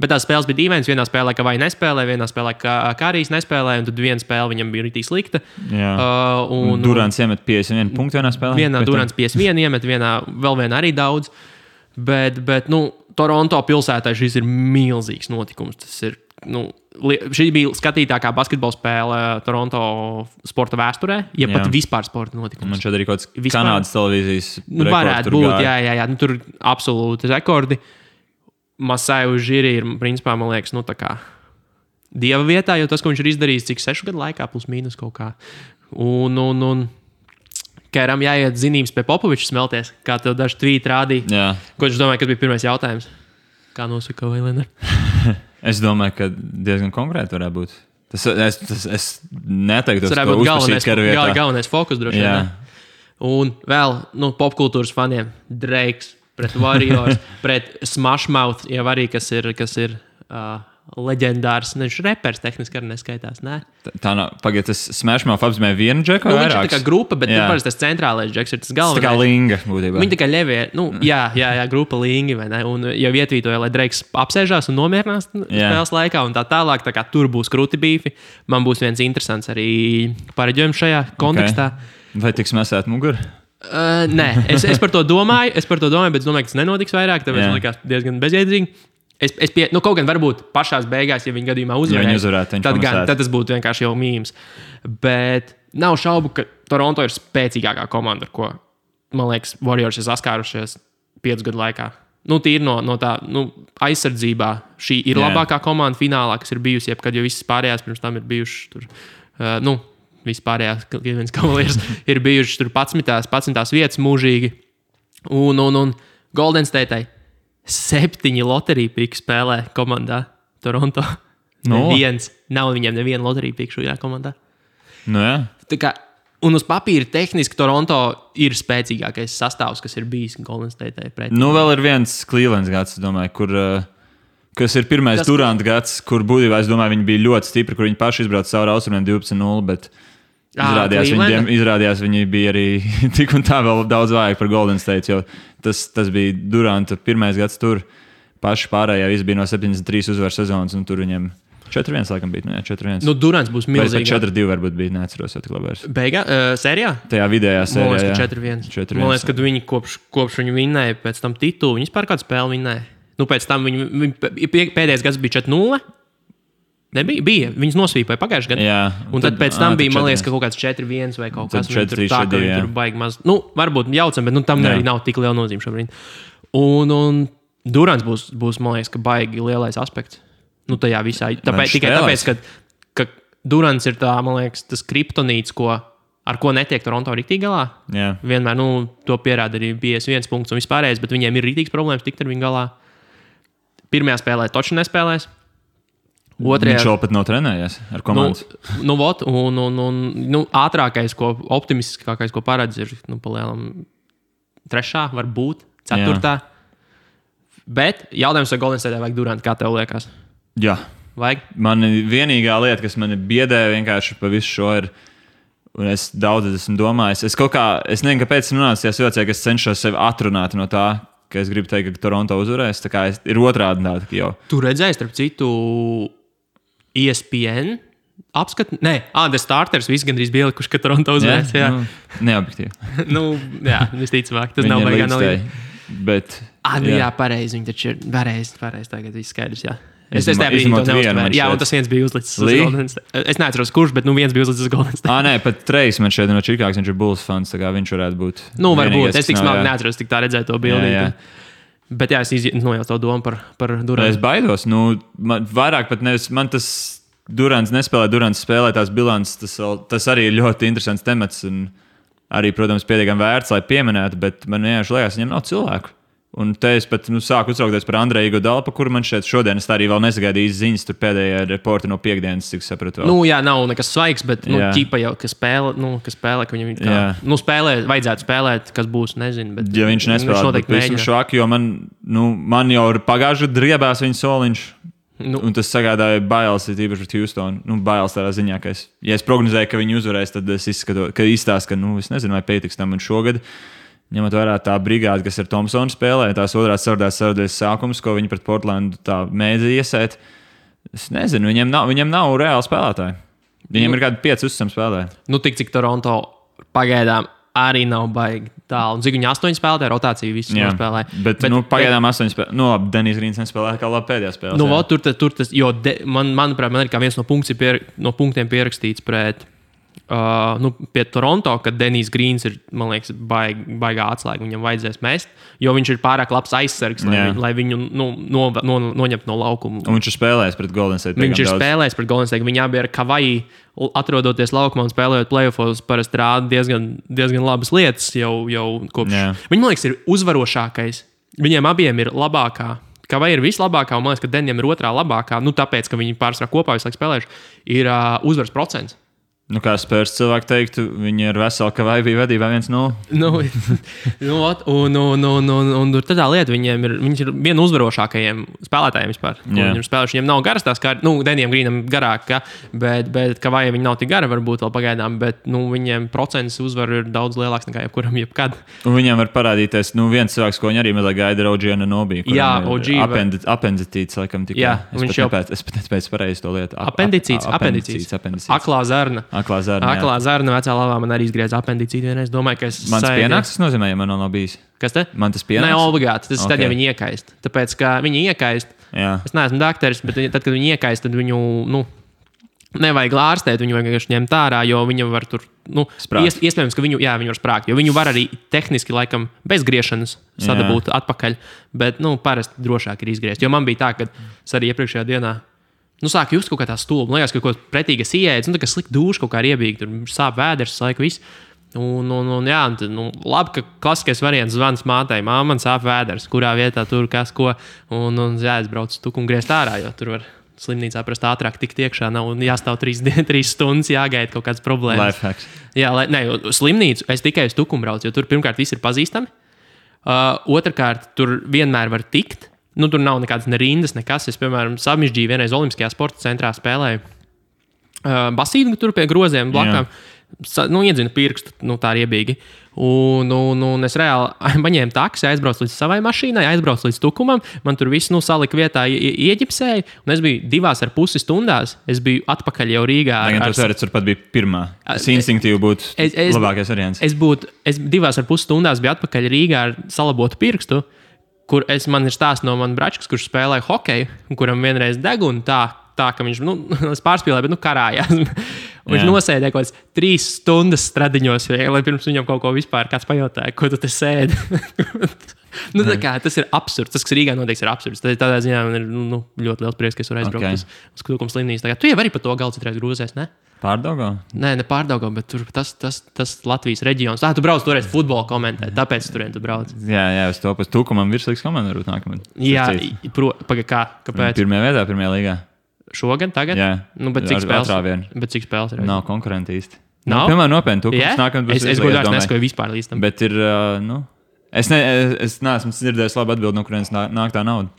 bet tās spēles bija dīvainas. Vienā spēlē, ka vai nespēlē, vienā spēlē, ka Kārijs nespēlē, un tad viena spēle viņam bija rītīgi slikta. Durants iemet 51 punktu vienā spēlē. Vienā Durants 51 iemet, vēl vienā arī daudz. Bet Toronto pilsētā šis ir milzīgs notikums. Tas ir, šī bija skatītākā basketbola spēle Toronto sporta vēsturē, ja pat vispār sporta notikums. Man šeit arī kaut kāds Kanādas televīzijas rekords. Varētu būt, jā. Tur absolūti rekordi. Masai Ujiri ir, principā, man liekas, tā kā dieva vietā, jo tas, ko viņš ir izdarījis, cik 6 gadu laikā, plus mīnus kaut kā. Un Kēram jāiet zinības pie Popoviča smelties, kā tev daži tvīti rādīja. Jā. Ko viņš domāja, kas bija pirmais jautājums? Kā nosaka Vailena? Es domāju, ka diezgan konkrēti varētu būt. Es neteiktu, tas varētu būt galvenais fokus droši vien. Un vēl popkultūras faniem Drakes pret Warriors, pret Smashmouth, jau arī, kas ir leģendārs. Viņš repers tehniski arī neskaitās, ne? Tā nav. Pagaid, tas Smashmouth apzīmē vienu džeku vai vairākus? Viņš ir tā kā grupa, bet parasti tas centrālais džeks ir tas galvenais. Tā kā Linga, būtībā. Viņi tā kā ļevie, jā, grupa Lingi, vai ne? Un jau ietvītoja, lai Drakes apsēžās un nomierinās spēles laikā, un tā tālāk, tā kā tur būs kruti bīfi. Man būs viens interesants arī pareģojums šajā kontekstā. Okay. Vai tiks mesēt muguru? Nē, es par to domāju, bet es domāju, ka tas nenotiks vairāk, tāpēc man likās diezgan bezjēdzīgi. Kaut gan varbūt pašās beigās, ja viņi gadījumā uzvarētu, tad tas būtu vienkārši jau mīms. Bet nav šaubu, ka Toronto ir spēcīgākā komanda, ar ko, man liekas, Warriors ir saskārušies 5 gadu laikā. Tīri no tā aizsardzībā. Šī ir labākā komanda finālā, kas ir bijusi, jebkad, jo visas pārējās pirms tam ir bijušas tur. Vispārējās Cleveland Cavaliers ir bijušas tur 11. vietas mūžīgi. Un Golden State 7 loteriju pīku spēlē komandā Toronto. Neviens. Nav viņiem neviena loteriju pīku šajā komandā. Tā kā, un uz papīra tehniski Toronto ir spēcīgākais sastāvs, kas ir bijis Golden State pretī. Vēl ir viens Clevelands gads, domāju, kas ir pirmais Durant gads, kur būtībā, es domāju, viņi bija ļoti stipri, kur viņi paši izbrauca cauri austrumiem 12-0, bet izrādījās, viņi bija arī tik un tā vēl daudz vājāk par Golden State, jo tas bija Duranta pirmais gads tur. Paši pārējā visi bija no 73 uzvaru sezonas, un tur viņiem 4-1 laikam bija. 4-1. Durants būs milzīgs. 4-2 varbūt bija, neatceros jau tik labi. Sērijā? Tajā vidējā sērijā. Man liekas, ka 4-1. Man liekas, kad viņi kopš viņi vinnēja pēc tam titulu, viņi vispār kādu spēli vinnēja. Pēc tam viņi pēdējais gads bija 4-0. Nebija? Bija. Viņus nosvīpoja pagājušajā gadā. Jā. Un tad pēc tam bija, man liekas, ka kaut kāds 4-1 vai kaut kas tāds. Tur baigi maz. Varbūt jaucam, bet tam arī nav tik liela nozīme šobrīd. Un Durants būs, man liekas, ka baigi lielais aspekts. Tajā visā. Tikai tāpēc, ka Durants ir tā, man liekas, tas kriptonīts, ar ko netiek Toronto rīktīgi galā. Jā. Vienmēr to pierāda arī 51 punkts un vispārējais, bet viņiem ir rītīgs problēmas tikt ar viņu galā. Pirmajā spēlē toči nespēlēs. Viņš vēl pat nav trenējies ar komandu. Ātrākais, optimistiskākais, ko paredz, ir palielam 3, varbūt 4. Bet jautājums, vai Golden State vajag Durant, kā tev liekas? Jā. Vajag? Man vienīgā lieta, kas mani biedē vienkārši pa visu šo ir, un es daudz esmu domājis, es nezinu, kāpēc esmu nonācis tajā situācijā, ka es cenšos sevi atrunāt no tā, ka es gribu teikt, ka Toronto uzvarēs. Tā kā ir otrādi tā, ka jau. Tu redzēji, starp citu, ESPN apskatu? Nē, The Starters visi gandrīz bija ielikuši, ka Toronto uzvarēs. Jā. Neobjektīvi. Visticamāk, tas nav baigā analīze. Bet... pareizi, viņi taču ir pareizi, tagad viss skaidrs, jā. Es tajā brīdī to neuztvēru. Jā, un tas viens bija uzlicis uz Golden State. Es neatceros, kurš, bet viens bija uzlicis uz Golden State. Nē, pat Trejs man šeit no Čikāgas, viņš ir Bulls fans, tā kā viņš varētu būt. Varbūt, es tik smagi neatceros, tik tā redzēju to bildi. Bet jā, es nojaucu to domu par Durantu. Es baidos, vairāk pat nevis, man tas Durants nespēlē, Durants spēlē tās bilances, tas arī ir ļoti interesants temats un arī, protams, pietiekami vērts, lai pieminētu, bet man vienkārši liekas, viņam nav cilvēku. Un te es pat sāku uztraukties par Andreju Iguodala, par kuru man šeit šodien es arī vēl nesagaidīju ziņas, tur pēdējā reporta no piekdienas, cik sapratu. Jā, nav nekas svaigs, bet ķipa jau, ka spēlē, ka viņam spēlē, vajadzētu spēlēt, kas būs, nezinu. Bet, ja viņš nespēlē, tad visam švaki, jo man jau ir pagājuši driebās viņa soliņš. Un tas sagādāja bailes, īpaši pret Houstonu. Bailes tādā ziņā, ka ja es prognozēju, ka viņi uzvarēs, tad es izskatos, ka es nezinu, vai pietiks tam un šogad. Ņemot vērā tā brigāde, kas ar Thompsonu spēlē, tās otrās ceturtdaļas sākums, ko viņi pret Portlandu tā mēdza iesēt. Es nezinu, viņiem nav reāli spēlētāji. Viņiem ir kādi 5 uzticami spēlētāji. Tik cik Toronto pagaidām arī nav baigi tālu. Un cik viņi 8 spēlētāji, rotāciju visus nospēlē. Bet pagaidām 8 spēlētāji. Labi, Denis Grīns nespēlēja kā labi pēdējā spēlē. Tur tas, jo manuprāt, man ir kā viens no punktiem pierakstīts pret pie Toronto, kad Denis Grīns ir, man liekas, baigā atslēga. Viņam vajadzēs mest, jo viņš ir pārāk labs aizsargs, lai viņu noņemtu no laukuma. Un viņš ir spēlējis pret Golden State. Viņš ir spēlējis pret Golden State. Viņi abi ir Kavaji, atrodoties laukumā un spēlējot playoffos, parasti rāda diezgan labas lietas jau kopš. Viņi, man liekas, ir uzvarošākais. Viņiem abiem ir labākā. Kavaji ir vislabākā, un man liekas, ka Denijam ir otrā labākā. Tāpēc, ka viņi pārsvarā kopā visu laiku spēlējuši, ir uzvaras procents. Kā Spurs cilvēki teiktu, viņi ir veseli, ka vai bija vedībā 1-0. Un tur tādā lieta, viņš ir viena no uzvarošākajiem spēlētājiem vispār. Viņam spēlējuši, viņam nav garas tās kā, Denijam Grīnam garāk, bet ka vai viņi nav tik gara varbūt vēl pagaidām, bet viņiem procents uzvaru ir daudz lielāks nekā jebkuram jebkad. Un viņam var parādīties, viens cilvēks, ko viņi arī mazliet gaida, ir Oģiana Nobī. Jā, OG. Apenditīts, laikam tikai. Jā, es pat pēc pareizi to lietu. Apendicīts. Aklā zarna. Aklā zarna vecā lavā man arī izgrieza apendicīti vienreiz. Domāju, ka mans pienāks, tas nozīmē, ja man nav bijis. Kas te? Man tas pienāks? Nē, obligāti. Tas tad, ja viņi iekaist. Tāpēc, ka viņi iekaist, es neesmu dakteris, bet tad, kad viņi iekaist, tad viņu, nevajag ārstēt, viņu vajag vienkārši ņemt ārā, jo viņi var tur, iespējams, ka viņi var sprākt, jo viņu var arī tehniski, laikam, bez griešanas sadabūt atpakaļ, bet, parasti drošāk ir izgriezt. Jo man bija tā, ka es arī iepriekšējā dienā sāk just kaut kā tā stulba. Man liekas, ka kaut ko pretīgas ieēdz, tā kā slikti dūši kaut kā riebīgi, tur sāp vēders, laika viss. Labi, ka klasiskais variants zvans mātei, man sāp vēders, kurā vietā tur kas ko, un jāizbrauc tuku un griezt ārā, jo tur var slimnīcā prast ātrāk tikt iekšā, nav jāstāv 3 stundas, jāgaida kaut kādas problēmas. Lifehacks. Jā, slimnīcu es tikai uz tukumu braucu, jo tur pirmkārt viss ir pazīstami, otrkārt tur vienmēr var tikt. Tur nav nekādas rindas, nekas. Es, piemēram, Samižģīju vienreiz Olimpiskajā sporta centrā spēlēju basīnu tur pie groziem blakām. Iedzinu pirkstu, tā riebīgi. Un es reāli paņēmu taksi, aizbraucu līdz savai mašīnai, aizbraucu līdz tukumam. Man tur viss salika vietā, ieģipsēja. Un es biju 2,5 stundās. Es biju atpakaļ jau Rīgā. Tur pat bija pirmā. Es instinktīvi būtu labākais variants. Es 2,5 stundās biju atpakaļ Rīgā ar salabotu pirkstu. Kur man ir stāsts no manas bračkas, kurš spēlēja hokeju, kuram vienreiz deguna tā ka viņš pārspīlēja, bet karājās. Viņš nosēdēja kaut kādas 3 stundas stradiņos, lai pirms viņam kaut ko vispār kāds pajautāja, ko tu te sēdi. Tas ir absurds. Tas, kas Rīgā notiek, ir absurds. Tādā ziņā man ir ļoti liels prieks, ka es varu aizbraukt uz Tukuma slimnīcu. Tu jau arī par to galdu citreiz grūzies, ne? Pārdaugā? Nē, ne pārdaugā, bet tur tas Latvijas reģions. Tu brauc toreiz futbolu komentēt, tāpēc turien tu brauc. Jā, es to pēc Tukumam virslīgas komandu varbūt nākamad. Jā, kāpēc? Pirmajā vietā, pirmajā līgā. Šogad, tagad? Jā. Bet cik spēles ir? Nav konkurenti īsti. Nav? Piemēram, nopietni Tukums nākamad būs. Es godīgi neskaidroju vispār līdz tam. Bet ir, es neesmu dzirdējis labu atbildi, no kurienes nāk tā nauda.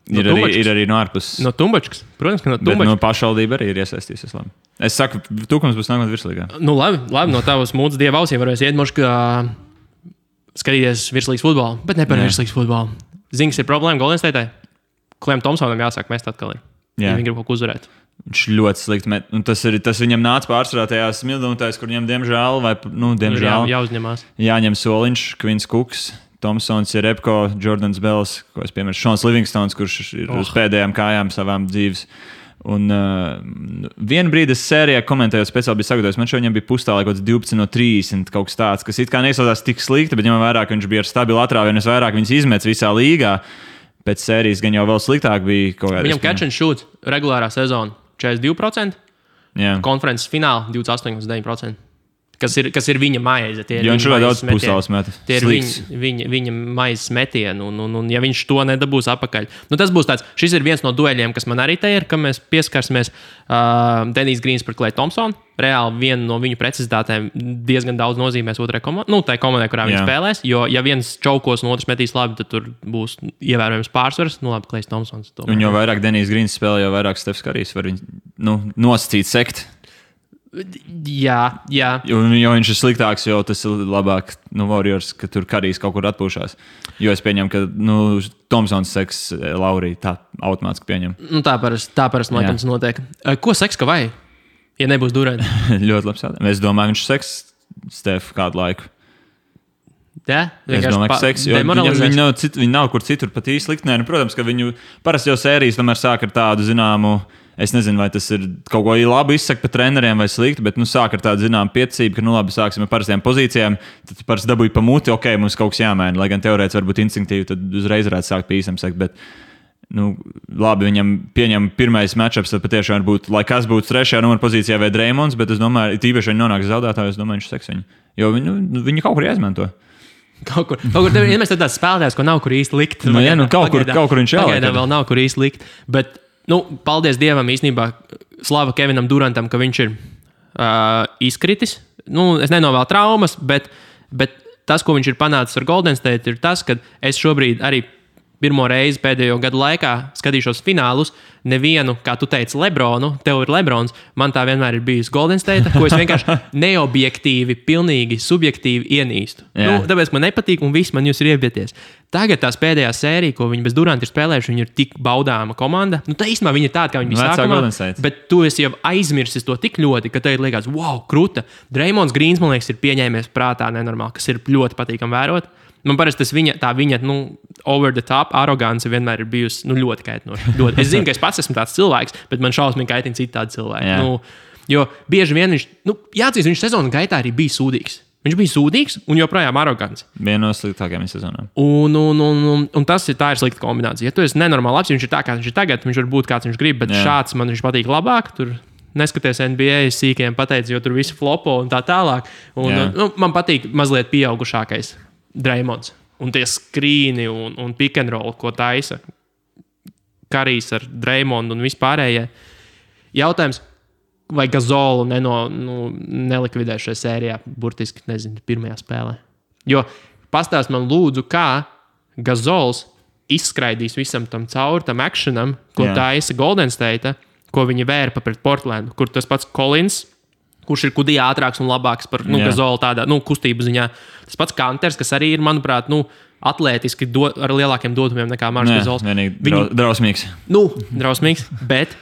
Ir arī no ārpuses. No Tumbačkas. Protams, ka no Tumbačkas. Bet no pašvaldība arī ir iesaistījusies. Es saku, Tukums būs nākamad virslīgā. Labi, no tavas mūdas dieva ausīm varēs iet moši, ka skatīties virslīgas futbolu, bet ne par virslīgas futbolu. Zings ir problēma Golden State'ai. Kliem Tomsonam jāsāk mest atkal ir. Ja viņi grib kaut ko uzvarēt. Viņš ļoti slikti met. Un tas viņam nāca pārsvarā tajās smildumitēs, kur viņam diemžēl jāuzņemās. Jāņem soliņš, Kvins Kuks, Tomsons, Jerebko, Jordans Bells, ko es piemēru, Šons Livingstons, kurš ir uz pēdējām kājām savām dzīves. Un vienu brīdi es sērijā komentējot speciāli bija sagatavojis, man šodien bija pustālē kaut 12 no 30 kaut kas tāds, kas it kā neizsaucās tik slikti, bet ņemam vērā, ka viņš bija ar stabilu atrāvienu, es vairāk viņus izmets visā līgā. Pēc sērijas gan jau vēl sliktāk bija kaut kādā. Viņam catch and shoot regulārā sezona 42%, jā. Konferences fināla 28,9%. kas ir viņa maize. Jo viņš ļoti daudz pustāls met. Tie ir viņa maizes metieni, un ja viņš to nedabūs apakaļ. Nu, tas būs tāds, šis ir viens no dueļiem, kas man arī te ir, ka mēs pieskarsimies Denijs Grīns par Klay Thompsonu. Reāli viena no viņu precizitātēm diezgan daudz nozīmēs otrai komandai, tai komandai, kurā viņi spēlēs. Jo, ja viens čaukos un otrs metīs labi, tad tur būs ievērojams pārsvars. Nu, labi, Klejs Thompsons. Un jo vairāk Denijs Grīns spēlē, jo vairāk Stefs Karijs var viņu nosacīt sekt. Jā. Jo viņš ir sliktāks, jo tas ir labāk Warriors, ka tur Karijs kaut kur atpūšās. Jo es pieņemu, ka Thompsons seks Laurī tā automātiski pieņem. Tā parasti man liekas notiek. Ko seks ka vai? Ja nebūs Durant? Ļoti labs jautājums. Es domāju, viņš seks Stefu kādu laiku. Jā? Es domāju, ka seks, jo viņi nav kur citur pat īsti likt. Nē, protams, ka viņu parasti jau sērijas tomēr sāk ar tādu zināmu. Es nezinu, vai tas ir kaut ko labi izsaka par treneriem vai slikti, bet sāk ar tādu zināmu piecību, ka labi, sāksim ar parastiem pozīcijām. Tad parasti dabūj pa muti, ok, mums kaut kas jāmaina. Lai gan teorētiski varbūt instinktīvi, tad uzreiz varētu sākt pa īsam sekt. Bet, labi, viņam pieņem pirmais matchups, tad patiešām varbūt, lai kas būtu trešajā numura pozīcijā vai Dreymonds, bet es domāju, tīpaši viņi nonāks zaudētāji, es domāju, viņš seks viņu. Jo viņi kaut kur jāizmanto. Kaut kur tev ir vienmēr tāds spēlētājs, ko nav kur īsti likt. Kaut kur viņš jāliek. Pagaidām vēl nav kur īsti likt. Bet, paldies Dievam īstenībā, slava Kevinam Durantam, ka viņš ir izkritis. Es nenovēlu traumas, bet tas, ko viņš ir panācis ar Golden State, ir tas, ka es šobrīd arī pirmo reizi pēdējo gadu laikā skatīšos finālus. Nevienu, kā tu teici, Lebronu, tev ir Lebrons, man tā vienmēr ir bijusi Golden State, ko es vienkārši neobjektīvi, pilnīgi subjektīvi ienīstu. Tāpēc man nepatīk, un viss man jūs ir iebieties. Tagad tās pēdējā sērija, ko viņi bez Duranta ir spēlējuši, viņi ir tik baudāma komanda. Tā īstenībā viņi ir tāda, kā viņi bija sākumā, bet tu esi jau aizmirsis to tik ļoti, ka tev liekas, wow, kruta. Dreymonds Grīns, man liekas, ir pieņēmies prātā nenormāli, kas ir ļoti patīkami vērot. Man parasti tas viņa over the top arogance vienmēr ir bijusi ļoti kaitinoša. Es zinu, ka es pats esmu tāds cilvēks, bet man šausmīgi kaitina citādi cilvēki. Jo bieži vien viņš sezonas gaitā arī bija sūdīgs. Viņš bija sūdīgs un joprojām arogants. Viena no sliktākajām sezonām. Un tā ir slikta kombinācija. Ja tu esi nenormāli labs, viņš ir tā, kā viņš ir tagad, viņš var būt kāds viņš grib, bet šāds man viņš patīk labāk. Tur neskaties NBA sīkiem pateicis, jo tur visi flopo un tā tālāk. Man patīk mazliet pieaugušākais Dreymonds. Un tie skrīni un pick and roll, ko taisa Karijs ar Dreymondu un vispārējie. Jautājums, vai Gazolu nelikvidē šajā sērijā, burtiski, nezinu, pirmajā spēlē. Jo pastāst man lūdzu, kā Gazols izskraidīs visam tam cauri, tam actionam, ko taisa Golden State, ko viņi vērpa pret Portlandu, kur tas pats Collins, kurš ir kudija ātrāks un labāks par Gazolu tādā kustību ziņā. Tas pats Kanters, kas arī ir, manuprāt, atlētiski ar lielākiem dotumiem nekā Marks Gazols. Drausmīgs. Drausmīgs, bet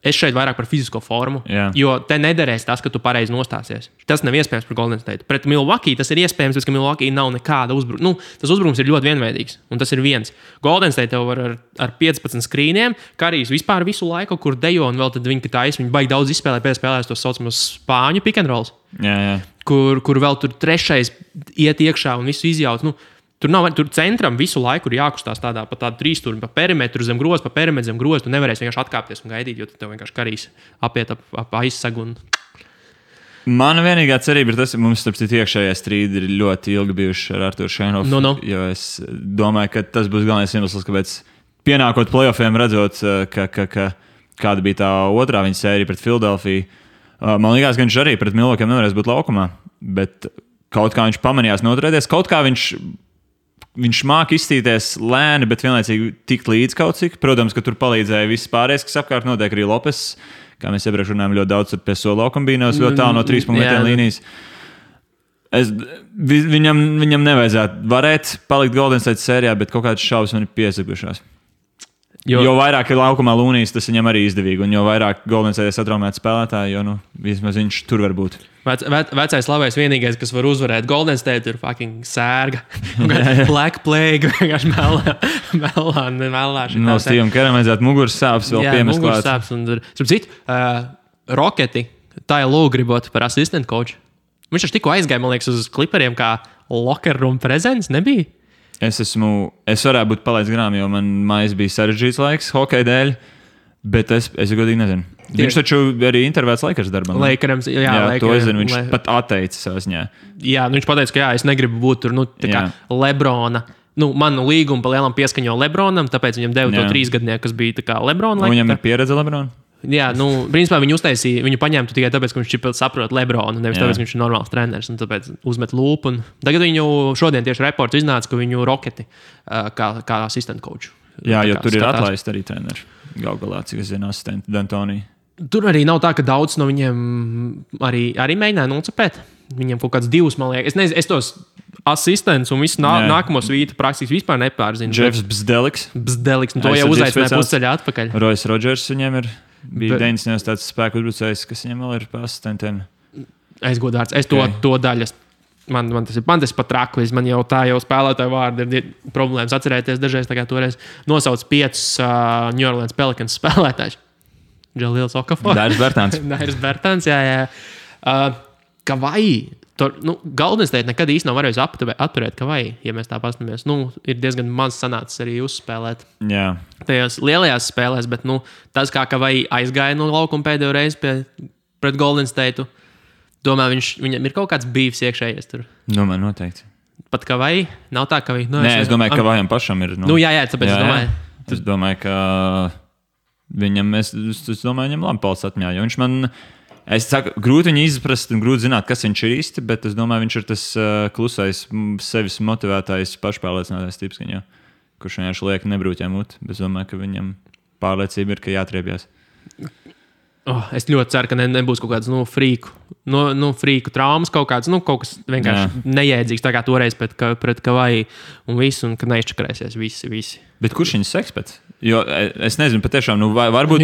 es šeit vairāk par fizisko formu, jo te nederēs tas, ka tu pareizi nostāsies. Tas nav iespējams par Golden State. Pret Milwaukee tas ir iespējams, ka Milwaukee nav nekāda uzbrukuma. Tas uzbrukums ir ļoti vienveidīgs, un tas ir viens. Golden State tev var ar 15 skrīniem, Karijs vispār visu laiku, kur dejo, un vēl tad viņi baigi daudz izspēlē, pēc spēlēs tos saucamos spāņu pick and rolls, kur vēl tur trešais iet iekšā un visu izjauc. Tur centram visu laiku ir jākustās tādā pa tādu trīsstūri, pa perimetru zem groza, pa perimetru zem groza. Tu nevarēsi vienkārši atkāpties un gaidīt, jo tev vienkārši Karijs apiet ap aizsagu. Mana vienīgā cerība ir tas, ka mums starp citu iekšējie strīdi ir ļoti ilgi bijuši ar Arturu Šeinovu. Jo es domāju, ka tas būs galvenais iemesls, kāpēc pienākot playoffiem, redzot, kāda bija tā otrā viņa sērija pret Filadelfiju. Man liekas, ka viņš arī pret Milwaukee nevarēs būt laukumā, bet kaut kā viņš pamanījās noturēties, kaut kā viņš māca izstīties lēni, bet vienlaicīgi tikt līdz kaut cik. Protams, ka tur palīdzēja viss pārējais, kas apkārt notiek arī Lopes. Kā mēs iepriekš runājām, ļoti daudz pie solo kombīnos, ļoti tālu no 3-punktu līnijas. Viņam nevajadzētu varēt palikt Golden State sērijā, bet kaut kādas šaubas man ir piesakušās. Jo vairāk ir laukumā Lūnijas, tas viņam arī izdevīgi. Un jo vairāk Golden State satraumēti spēlētāji, jo vismaz viņš tur var būt. Vecais labais vienīgais, kas var uzvarēt Golden State, ir fucking sērga. Black Plague, vienkārši melā. No Stevam Keram vajadzētu muguras sāpes vēl piemest klāt. Jā, muguras sāpes. Starp citu, Roketi, tā jau gribot par asistent coach. Viņš taču tikko aizgāja, man liekas, uz Clipperiem kā locker room presence, nebija? Es varētu būt palaidis garām, jo man mājas bija sarežģīts laiks hokeja dēļ. Bet es godīgi nezinu. Viņš taču arī intervētas Lakers darbam. Lakerams, jā, to es zinu. Viņš pat atteica savā ziņā. Jā, viņš pateica, ka es negribu būt tur, tā kā Lebrona. Manu līgumu pa lielam pieskaņo Lebronam, tāpēc viņam deva to 3 gadnieku, kas bija tā kā Lebrona. Viņam ir pieredze Lebrona? Jā, principā viņu paņēma tikai tāpēc, ka viņš saprot Lebronu, nevis tāpēc, ka viņš ir normāls treneris, un tāpēc uzmet lūpu. Tagad viņu šodien tieši reports iznāca, ka viņu Roketi kā asistent coach. Jā, jo tur ir atlaist arī treneri. Galā, cik es zinu, asistenti D'Antoni. Tur arī nav tā, ka daudz no viņiem arī mēģināja nocepēt. Viņiem kaut kāds 2, man liekas. Es tos asistents un visu nākamo svītu praktiski vispār nepārzinu. Jeffs Bzdeliks. To jau uzaicināja pusceļā atpakaļ. Royce Rodgers viņiem bija 90. tāds spēku uzbrucējs, kas viņam vēl ir pa asistentiem. Aizgodārts. Es to daļas. Man tas pat traku. Man jau spēlētāju vārdi ir problēmas atcerēties dažreiz. Tā kā toreiz nosauc 5 New Orleans Pelicans spēlētājus. Džalils Okafor. Dairis Bertāns, jā. Kavai. Golden State nekad īsti nav varējis atturēt Kavai, ja mēs tā paskatāmies. Ir diezgan maz sanācis arī uzspēlēt. Jā. Tajās lielajās spēlēs, bet tas, kā Kavai aizgāja no laukuma pēdējo reizi pret Golden State, domāju, viņam ir kaut kāds bīvs iekšējies tur. Domāju, noteikti. Pat Kavai nav tā, ka viņš... Nē, es domāju, ka Kavajam pašam ir... Jā, tāpēc es domāju. Es domāju, ka viņam labi palicis atmiņā, jo viņš man... Es saku, grūti viņu izprast un grūti zināt, kas viņš ir īsti, bet es domāju, viņš ir tas klusais, sevis motivētājs, pašpārliecinātais tips, kurš vienkārši liek nebrūķē muti, bet es domāju, ka viņam pārliecība ir, ka jātriebjās. Es ļoti ceru, ka nebūs kaut kāds frīku traumas, kaut kas vienkārši nejēdzīgs, tā kā toreiz pret Kavai un visu, un ka neizčakarēsies visi. Bet kurš viņus seks pēc? Jo es nezinu, patiešām, varbūt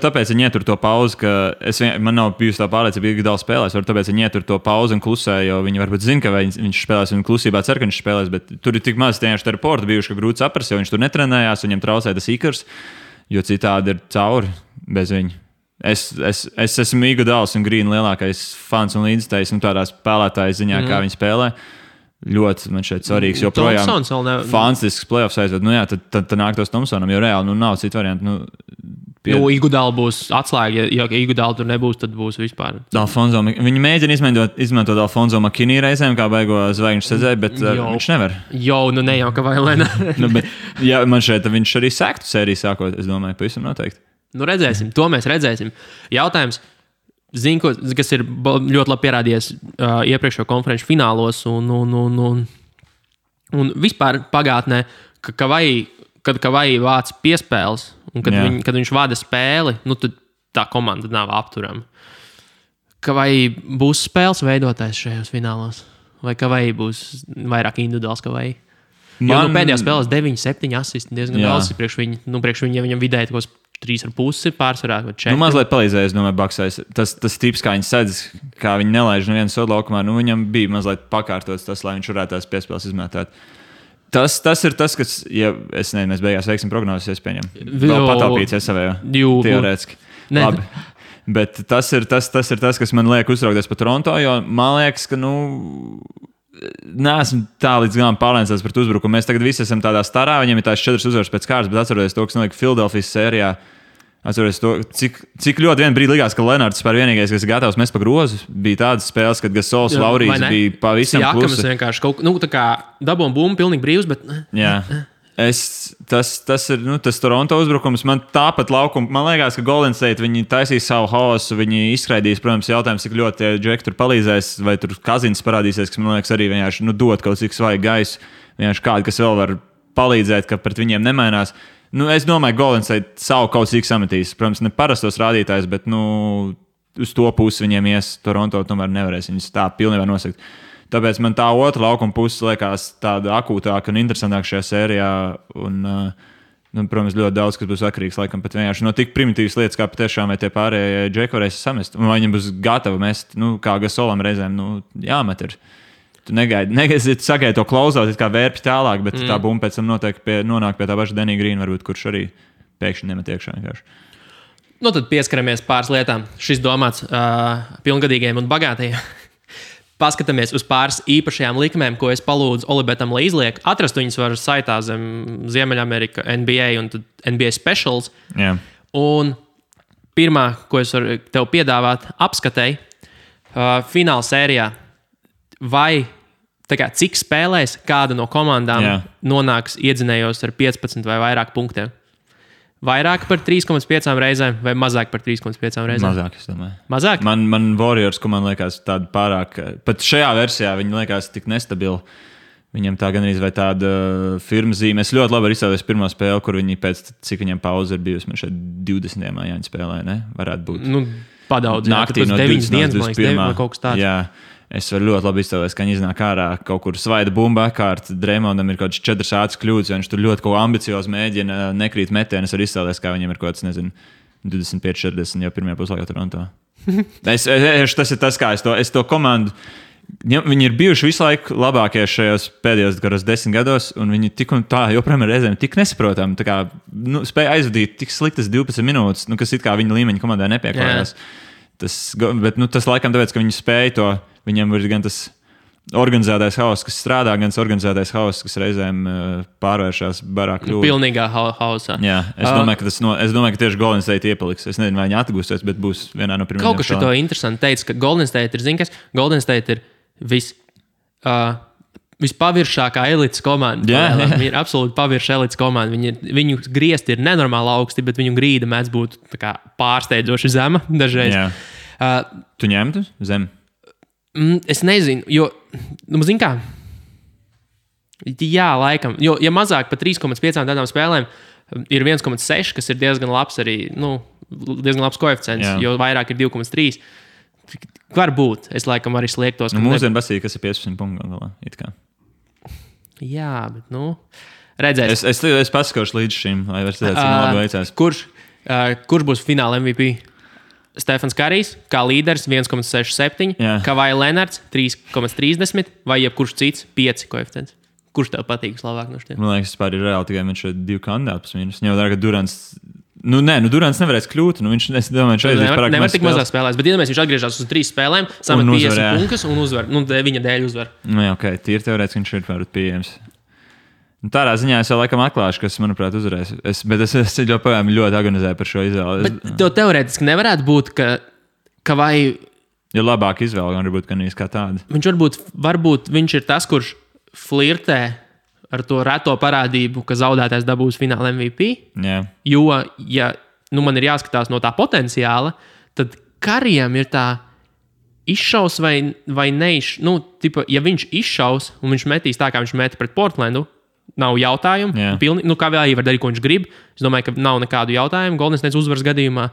tāpēc viņi ietur to pauzi, ka man nav bijusi tā pārliecība, ka Iguodala spēlēs, varbūt tāpēc viņi ietur to pauzi un klusē, jo viņi varbūt zina, ka viņš spēlēs un klusībā cer, ka viņš spēlēs, bet tur ir tik maz tieši reporti bijuši, ka grūti saprast, jo viņš tur netrenējās, viņam traucēja tas ikars, jo citādi ir cauri bez viņa. Es esmu Iguodalas un Grīna lielākais fans un līdzstājs tādā spēlētāja ziņā, kā viņi spēlē. Ļoti man šeit svarīgs, jo projām fantastisks playoffs aizved. Tad nāk tos Thompsonam, jo reāli nav citu variantu. Iguodala būs atslēga, ja Iguodala tur nebūs, tad būs vispār. Viņi mēģina izmantot Alfonso McKinney reizēm, kā beigo zvaigžņu sezēju, bet viņš nevar. Ne jau, ka vai lēnā. Man šeit viņš arī sektu sēriju sākot, es domāju, pavisam noteikti. Redzēsim, to mēs redzēsim. Jautājums. Zinu, kas ir ļoti labi pierādījies iepriekšējo konferenču finālos un vispār pagātnē, kad Kavai vāc piespēles un kad viņš vada spēli, tad tā komanda nav apturama. Kavai būs spēles veidotājs šajos finālos? Vai Kavai būs vairāk individuāls Kavai? Jo pēdējās spēlēs 9, 7 asisti diezgan daudz priekš viņa, ja viņam vidēji 3,5 pārsvarā vai 4. Mazliet palīdzēja, es domāju, Baksais. Tas tips, kā viņi sedz, kā viņi nelaiž nevienu sodu laukumā, viņam bija mazliet pakārtots tas, lai viņš varētu tās piespēles izmētāt. Tas ir tas, kas, ja es nezinu, mēs beigās veiksim prognozes, es pieņemu. Vēl patāpīts savējo, teorētiski. Labi. Bet tas ir tas, kas man liek uztraukties par Toronto, jo man liekas, ka, neesmu tā līdz galam pārliecināts par uzbrukumu. Mēs tagad visi esam tādā starā, viņiem ir tās 4 uzvaras pēc kārtas, bet atceroties to, kas notika Filadelfijas sērijā. Atceroties to, cik ļoti vien brīdi likās, ka Lenards par vienīgais, kas ir gatavs mest pa grozu. Bija tādas spēles, kad Gasols, Laurijas bija pavisam klusi. Siakamas vienkārši tā kā dabūm bumbu pilnīgi brīvs, bet... Jā. Tas ir tas Toronto uzbrukums. Man tāpat laukuma, man liekas, ka Golden State viņi taisīs savu haosu, viņi izskraidīs, protams, jautājums, cik ļoti tie džeki tur palīdzēs, vai tur Kazins parādīsies, kas man liekas arī vienkārši dot kaut cik svaigu gaisu, vienkārši kādu, kas vēl var palīdzēt, ka pret viņiem nemainās. Es domāju, ka Golden State savu kaut cik sametīs. Protams, ne parastos rādītājs, bet uz to pusi viņiem ies. Toronto tomēr nevarēs viņus tā pilnībā nosakt. Tāpēc man tā otra laukuma puse liekas tāda akūtāka un interesantāka šajā sērijā. Protams, ļoti daudz, kas būs atkarīgs laikam pat vienkārši no tik primitīvas lietas, kā patiešām vai tie pārējie džeki varēs samest. Un vai viņiem būs gatavi mest, kā Gasolam reizēm, jāmet ir. Tu negaidi sagaidi to klausot, kā vērpi tālāk, bet tā bumba pēc tam noteikti nonāk pie tā paša Denija Grīna, varbūt, kurš arī pēkšņi nemet iekšā vienkārši. Tad pieskaramies pāris lietām. Šis domāts pilngadīgiem un bagātajiem. Paskatāmies uz pāris īpašajām likmēm, ko es palūdzu Olibetam, lai izliek. Atrast viņus var saitā zem Ziemeļamerika NBA un NBA Specials. Yeah. Un pirmā, ko es varu tev piedāvāt, apskatēji fināla sērijā, vai cik spēlēs kāda no komandām nonāks iedzinējos ar 15 vai vairāk punktiem. Vairāk par 3,5 reizēm vai mazāk par 3,5 reizēm? Mazāk, es domāju. Mazāk? Man Warriors, ko man liekas tāda pārāk, pat šajā versijā viņi liekas tik nestabili. Viņam tā gan arī vai tāda firma zīme. Es ļoti labi izstāvēju pirmo spēli, kur viņi pēc cik viņam pauze ir bijusi. Man šeit 20. Jāņa spēlē, ne? Varētu būt. Nu, padaudz. Naktī no 9. līdz 21. Kaut kas tāds. Jā. Es varu ļoti labi iztēloties, ka viņi iznāk ārā kaut kur svaida bumba kārt. Dreimondam ir kaut kāds 4 ātras kļūdas, jo viņš tur ļoti kaut ko ambiciozi mēģina, nekrīt metienu. Es varu iztēloties, kā viņam ir kaut kāds, nezinu, 25-40 jau pirmajā puslaikā Toronto. Tas ir tas, kā es to komandu. Viņi ir bijuši visu laiku labākie šajos pēdējos 10 gados, un viņi tik un tā joprojām ir reizēm tik nesaprotami. Spēja aizvadīt tik sliktas 12 minūtes, kas it kā viņa līmeņa komandai nepieklājās. Tas laikam tāpēc, ka viņi spēja to. Viņam ir gan tas organizētais hauss, kas strādā, gan tas organizētais hauss, kas reizēm pārvēršas barā kļūdā. Pilnīgā hausā. Jā, es domāju, ka tieši Golden State iepaliks. Es nezinu, vai viņi atgūsies, bet būs vienā no pirmajām. Kaut kas šito interesanti teica, ka Golden State ir, zini kas, Golden State ir vispaviršākā elites komanda. Viņi ir absolūti pavirša elites komanda. Viņu griezti ir nenormāli augsti, bet viņu grīda mēdz būt pārsteidzoši zema dažreiz. Tu ņemtu zem? Es nezinu, jo, zini kā, jā, laikam, jo, ja mazāk par 3,5 tādām spēlēm ir 1,6, kas ir diezgan labs arī, diezgan labs koeficients, jo vairāk ir 2,3. Var būt, es laikam arī sliektos. Mūsdienu basīja, kas ir 15 punktu galā, it kā. Jā, bet, redzēs. Es paskakošu līdz šim, lai var redzēt, cik labi veicās. Kurš būs fināla MVP? Stefans Karijs, kā līderis 1,67, Kawhi Leonards 3,30 vai jebkurš cits 5 koeficients. Kurš tev patīk vislabāk no šiem? Man liekas, vispār ir reāli tikai viņš ir 2 kandidātus mīnus. Ņemot vērā, ka Durants, Durants nevarēs kļūt. Es domāju, viņš aizies pārāk nevar tik mazāk spēlēs, bet iedomājies, viņš atgriežas uz 3 spēlēm, samet 50 punktus un uzvar. Viņa dēļ uzvar. Ok, tīri teorētiski viņš ir varbūt pieejams. Tādā ziņā es jau laikam atklāšu, kas, manuprāt, uzvarēs. Bet es joprojām ļoti agonizēju par šo izvēli. Bet tev teorētiski nevarētu būt, ka vai... Ja labāk izvēle, gan varbūt, ka nīs kā tāda. Viņš varbūt viņš ir tas, kurš flirtē ar to reto parādību, ka zaudētājs dabūs fināla MVP. Jā. Jo, ja man ir jāskatās no tā potenciāla, tad Karijam ir tā izšaus vai neizšaus. Ja viņš izšaus un viņš metīs tā, kā viņš meta pret Portlandu, nav jautājumu. Kā vēl var darīt, ko viņš grib. Es domāju, ka nav nekādu jautājumu Golden State uzvaras gadījumā.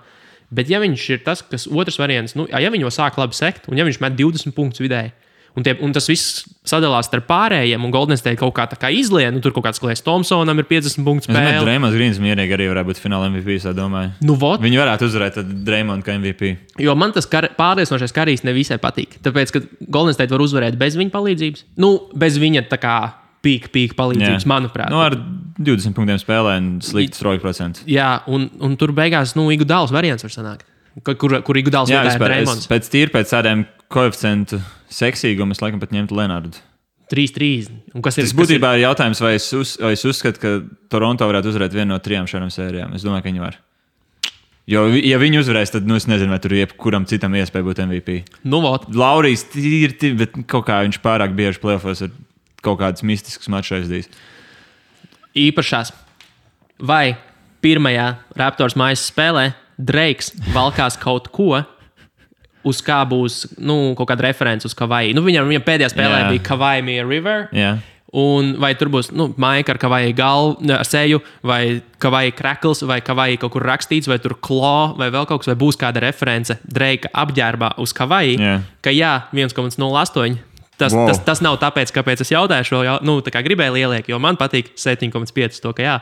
Bet ja viņš ir tas, kas otrs variants, ja viņi jau sāk labi sekt, un ja viņš met 20 punktus vidēji, un tas viss sadalās starp pārējiem, un Golden State kaut kā izlien, tur kaut kāds Klejs Thompsonam ir 50 punktu spēle. Es domāju, Draymonds Greens mierīgi arī varētu būt fināla MVP, es domāju. Viņi varētu uzvarēt Draymond kā MVP. Jo man tas pārliecinošais Karijs nevisai patīk. Tāpēc, ka Golden State var uzvarēt bez viņa palīdzības. Bez viņa tā kā pīka palīdzības, manuprāt. Ar 20 punktiem spēlē un slikts roļu procents. Jā, un tur beigās Iguodāls variants var sanākt. Kur Iguodāls vietā ir Draymonds. Pēc tādiem koeficientu seksīgumu es laikam pat ņemtu Lenardu. 3-3. Tas būtībā ir jautājums, vai es uzskatu, ka Toronto varētu uzvarēt vienu no 3 šādām sērijām. Es domāju, ka viņi var. Jo, ja viņi uzvarēs, tad es nezinu, vai tur jebkuram citam iespēja būt MVP. Laurijs tīri, bet kaut kā viņš pārāk bieži playoffos ir kaut kādas mistiskas mačs aizdīs. Īpašās. Vai pirmajā Raptors mājas spēlē Drakes valkās kaut ko, uz kā būs kaut kāda reference uz Kawhi? Viņam pēdējā spēlē bija Kawhi Mia River. Un vai tur būs maika ar Kawhi seju, vai Kawhi crackles, vai Kawhi kaut kur rakstīts, vai tur claw, vai vēl kaut kas, vai būs kāda reference Drake apģērbā uz Kawhi, ka 1,08. Tas nav tāpēc, kāpēc es jautāju šo, tā kā gribēju lieliek, jo man patīk 7,5 to, ka jā.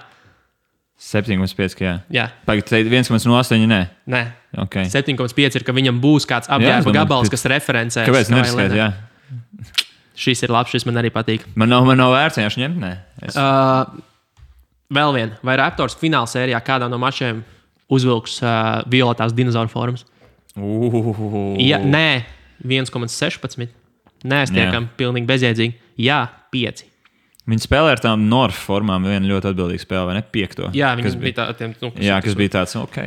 7,5, ka jā. Jā. Pagaid, 1,08, nē? Nē. Okay. 7,5 ir, ka viņam būs kāds apģērba gabals, kas referencē. Kāpēc neriskēt, jā? Šis ir labs, šis man arī patīk. Man nav vērts vienkārši ņemt, nē. Vēl viena. Vai Raptors fināla sērijā kādā no mačiem uzvilks violetās dinozauru formas? Ja, nē, 1,16. Nē, es tiekam pilnīgi bezjēdzīgi. Jā, 5. Viņi spēlē ar tām North formām. Viena ļoti atbildīga spēle, vai ne? 5. Jā, viņas bija tādiem. Jā, kas bija tāds, ok.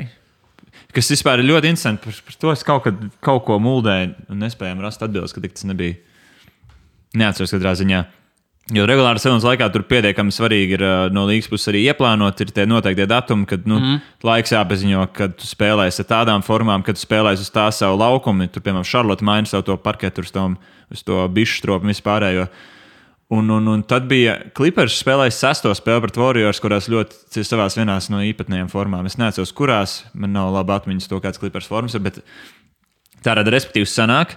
kas vispār ir ļoti interesanti. Par to es kaut ko muldēju un nespējām rast atbildes, ka tas nebija. Neatceros katrā ziņā. Jo regulāri sezonas laikā tur pietiekami svarīgi ir no līgas puses arī ieplānot, ir tie noteiktie datumi, kad laiks jāpaziņo, kad tu spēlēsi ar tādām formām, kad tu spēlēsi uz tā savu laukumu. Tur, piemēram, Charlotte maina savu to parketu uz to bišu stropu un vispārējo. Un tad bija Clippers spēlējis 6. spēli pret Warriors, kurās ļoti savās vienās no īpatnējām formām. Es neatceros, kurās, man nav labi atmiņas to, kāds Clippers formas ir, bet tāda respektīvi sanāk.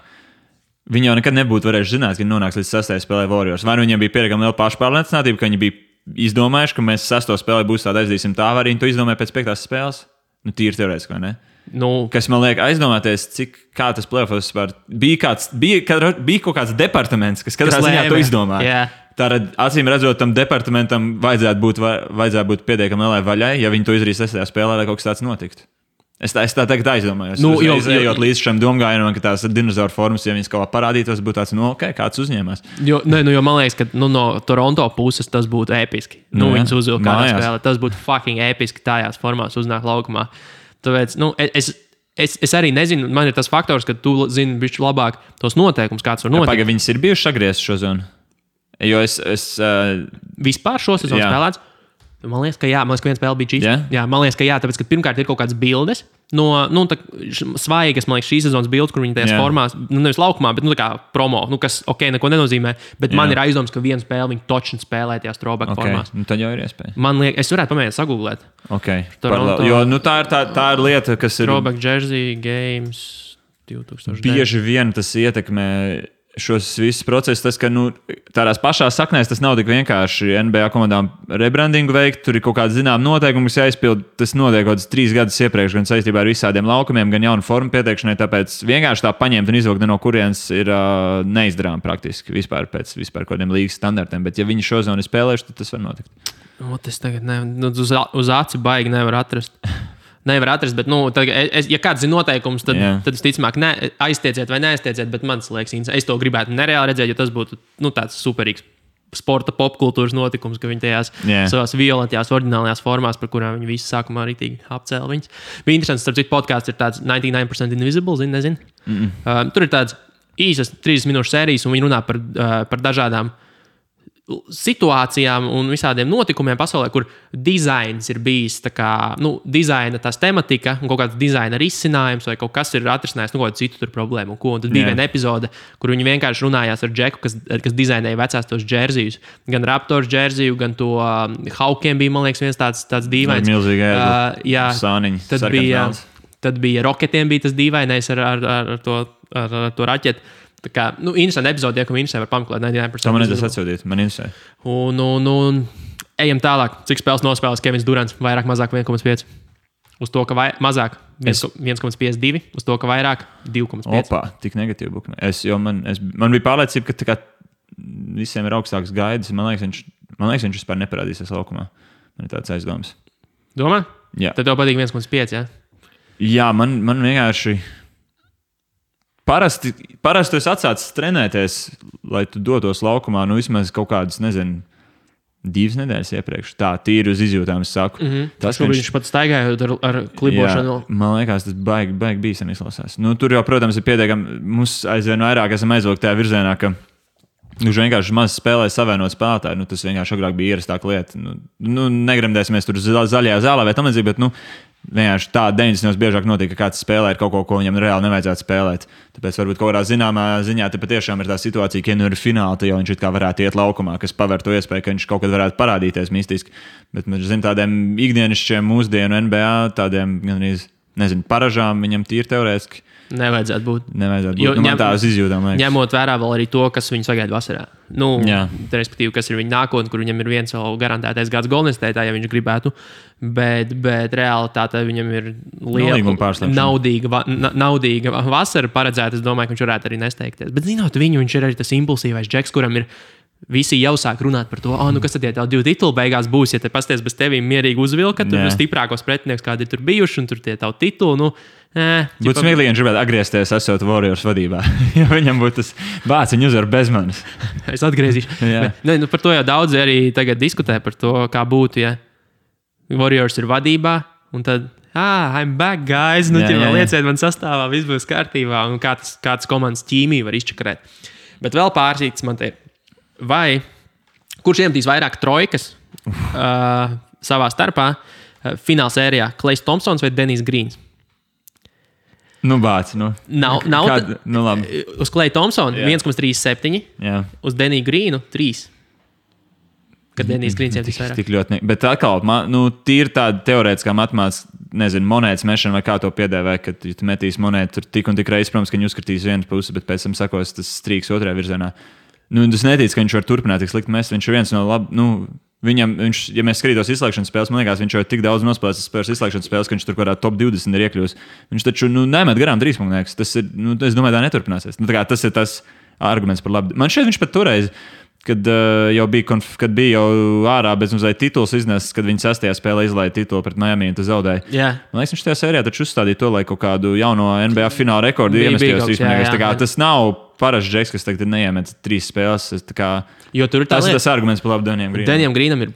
Viņi jau nekad nebūtu varējuši zināt, ka viņi nonāks līdz 6. spēlē Warriors. Vai nu viņiem bija pietiekami liela pašpārliecinātība, ka viņi bija izdomājuši, ka mēs 6. spēlē būs tāda aizdīsim tā, vai arī viņi to izdomāja pēc 5. spēles? Nu, tīri teorētiski, vai ne? Kas man liek aizdomāties, kā tas playoffs vispār bija kaut kāds departaments, kas katrā ziņā to izdomāja. Yeah. Tātad, acīm redzot, tam departamentam vajadzētu būt pietiekami lielai vaļai, ja viņi to izdarīs 6. spēlē, lai kaut kas tāds notiktu. Es tā tagad aizdomājos. Ejot līdz šim domgājienam, ka tās dinozauru formas, ja viņas kaut kā parādītos, būtu tāds, kāds uzņēmās. Jo man liekas, ka no Toronto puses tas būtu episki. Viņas uzvilka kādā spēlē. Tas būtu fucking episki tajās formās uznāk laukumā. Tāpēc, es arī nezinu, man ir tas faktors, ka tu zini bišķi labāk tos noteikumus, kāds var notikt. Viņas ir bijušas agrieztas šo zonu? Jo es vispār šo sezonu spēlēts? Man liekas, ka jā, man liekas, ka viena spēle bija šī. Yeah? Jā, man liekas, ka jā, tāpēc, ka pirmkārt ir kaut kādas bildes no svaigas, man liekas, šīs sezonas bildes, kur viņi tajās formās, nevis laukumā, bet tā kā promo, kas, neko nenozīmē, bet man ir aizdoms, ka vienu spēli viņi točni spēlē tajās throwback formās. Tad jau ir iespēja. Man liekas, es varētu pamēģināt sagūglēt. Toronto, jo tā ir lieta, kas ir... Throwback jersey games 2009. Bieži vien tas ietekmē šos visus procesus, tas, ka tādās pašās saknēs tas nav tik vienkārši NBA komandām rebrandingu veikt, tur ir kaut kāda zināma noteikuma, kas jāizpild, tas notiek kaut kāds 3 gadus iepriekš, gan saistībā ar visādiem laukumiem, gan jaunu formu pieteikšanai, tāpēc vienkārši tā paņemt un izvilkt no kurienes ir neizdarām praktiski vispār pēc kaut kādiem līgas standartiem, bet ja viņi šo zonu ir spēlējuši, tad tas var notikt. Es tagad uz aci baigi nevar atrast. Nevar atrast, bet, ja kāds zina noteikumus, tad visticamāk aiztieciet vai neaiztieciet, bet man liekas, es to gribētu nereāli redzēt, jo tas būtu tāds superīgs sporta popkultūras notikums, ka viņi tajās savās violetajās, oriģinālajās formās, par kurām viņi visi sākumā rītīgi apcēla viņas. Bija interesants, starp citu, podcasts ir tāds 99% Invisible, nezinu. Tur ir tāds īsas 30 minūšu sērijas, un viņi runā par dažādām situācijām un visādiem notikumiem pasaulē, kur dizains ir bijis dizaina tās tematika un kaut kāds dizaina risinājums vai kaut kas ir atrisinājis kaut kādu citu problēmu. Un tad bija viena epizode, kur viņi vienkārši runājās ar Džeku, kas dizainēja vecās tos džerzijus. Gan Raptors džerziju, gan to Hawkiem bija, man liekas, viens tāds dīvains. Milzīgi sāniņi, sarkans. Tad bija Rocketiem bija tas dīvainais ar to raķeti. Tā kā, interesanti epizode, ka interesē var pameklēt 99%. To man nedas atsūtīt, man interesē. Un ejam tālāk. Cik spēles nospēlēs Kevins Durants? Vairāk, mazāk 1,5. Uz to, ka mazāk 1,52. Uz to, ka vairāk 2,5. Opā, tik negatīvi bukme. Man bija pārliecība, ka visiem ir augstāks gaidas. Man liekas, viņš vispār neparādīsies laukumā. Man ir tāds aizdoms. Domā? Jā. Tad tev patīk 1,5, jā? Jā, man vienkārši... Parasti tu esi atsācis trenēties, lai tu dotos laukumā, vismaz kaut kādas, 2 nedēļas iepriekš. Tā, tīri uz izjūtām, es saku. Tas, ka viņš pat staigājot ar klibošanu. Jā, man liekas, tas baigi bīstami izklausās. Tur jau, protams, ir pietiekami, mums aizvien vairāk esam aizvilkti tajā virzienā, ka viņš vienkārši maz spēlē savienot spēlētāju. Tas vienkārši agrāk bija ierastāka lieta. Negremdēsimies tur zaļajā zālē vai tam līdzīgi, bet, vienkārši tā 90. biežāk notiek, ka kāds spēlē ar kaut ko viņam reāli nevajadzētu spēlēt. Tāpēc varbūt kaut kādā zināmā ziņā te patiešām ir tā situācija, ka ir fināli, tad jau viņš it kā varētu iet laukumā, kas paver to iespēju, ka viņš kaut kad varētu parādīties mistiski. Bet mēs zinām tādiem ikdienišķiem mūsdienu NBA, tādiem gandrīz, paražām viņam tīri teorētiski. Nevajadzētu būt. Man tās izjūtām. Ņemot vērā vēl arī to, kas viņu sagaida vasarā. Respektīvi, kas ir viņa nākotne, kur viņam ir viens vēl garantētais gads Golden State'ā, ja viņš gribētu. Bet realitātē viņam ir liela naudīga vasara paredzēta. Es domāju, ka viņš varētu arī nesteigties. Bet zinot viņu, viņš ir arī tas impulsīvais džeks, kuram ir visi jau sāk runāt par to, kas tad tie 2 tituli beigās būs, ja te pasties bez tevīm mierīgi uzvilka, tur stiprākos pretinieks, kādi tur bijuši, un tur tie tavu titulu, būtu smieklīgi, ja viņš gribētu atgriezties, esot Warriors vadībā. Ja viņam būtu tas bācis, viņa uzvar bez manis. Es atgriezīšu. Par to jau daudzi arī tagad diskutē par to, kā būtu, ja Warriors ir vadībā, un tad I'm back, guys. Nu, lieciet man sastāvā, viss būs kārtībā. Un kā tas komandas ķīmija var izčakarēt. Bet vēl pārsīts man te ir. Vai kurš iemetīs vairāk trojkas savā starpā fināla sērijā? Klejs Thompsons vai Denijs Grīns? Bāc, Nav. Labi. Uz Kleja Thompsona 1,37. Jā. Uz Deniju Grīnu 3. Kad Denijs Grīns iemetīs vairāk. Tik ļoti bet atkal, tīri tāda teorētiskā matemātikas, nezinu, monētas mešana vai kā to piedēvē, kad tu metīs monētu tur tik un tik reizes, protams, ka viņi uzskatīs vienu pusi, bet pēc tam sakos tas strīks otrajā virzienā. Es neticu, ka viņš var turpināt tik slikti mest. Viņš ir viens no ja mēs skatītos izslēgšanas spēles, man liekas, viņš jau ir tik daudz nospēlējis spēles izslēgšanas spēles, ka viņš tur kādā top 20 ir iekļūst. Viņš taču nemet garām trīspunktniekus. Tas ir, es domāju, tā neturpināsies. Tas ir tas arguments par labu. Man šeit viņš pat toreiz, kad jau bija ārā bez mazliet tituls iznesis, kad viņi 6. spēlē izlaiž titulu pret Miami un tas zaudēja. Yeah. Man liekas, viņš tajā sērijā taču uzstādīja to, lai kaut kādu jauno NBA fināla rekordu iemestījos. Tas nav parasts džeks, kas tagad neiemet 3 spēles. Jo tur ir tas arguments par labu Denijam Grīnam. Denijam Grīnam ir,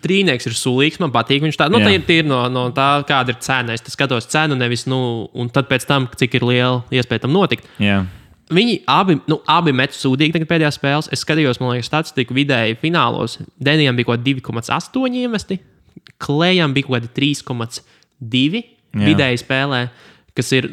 trīnieks ir sulīgs, man patīk. Viņš tā, tā ir no tā, kāda ir cena. Es skatos cenu, nevis, un tad pēc tam, cik ir liela iespēja tam notikt. Yeah. Viņi abi met sūdīgi tagad pēdējās spēles. Es skatījos, man liekas, statistiku vidēji finālos. Denijam bija kaut 2,8 iemesti, Klejam bija kaut 3,2 vidēji spēlē, kas ir,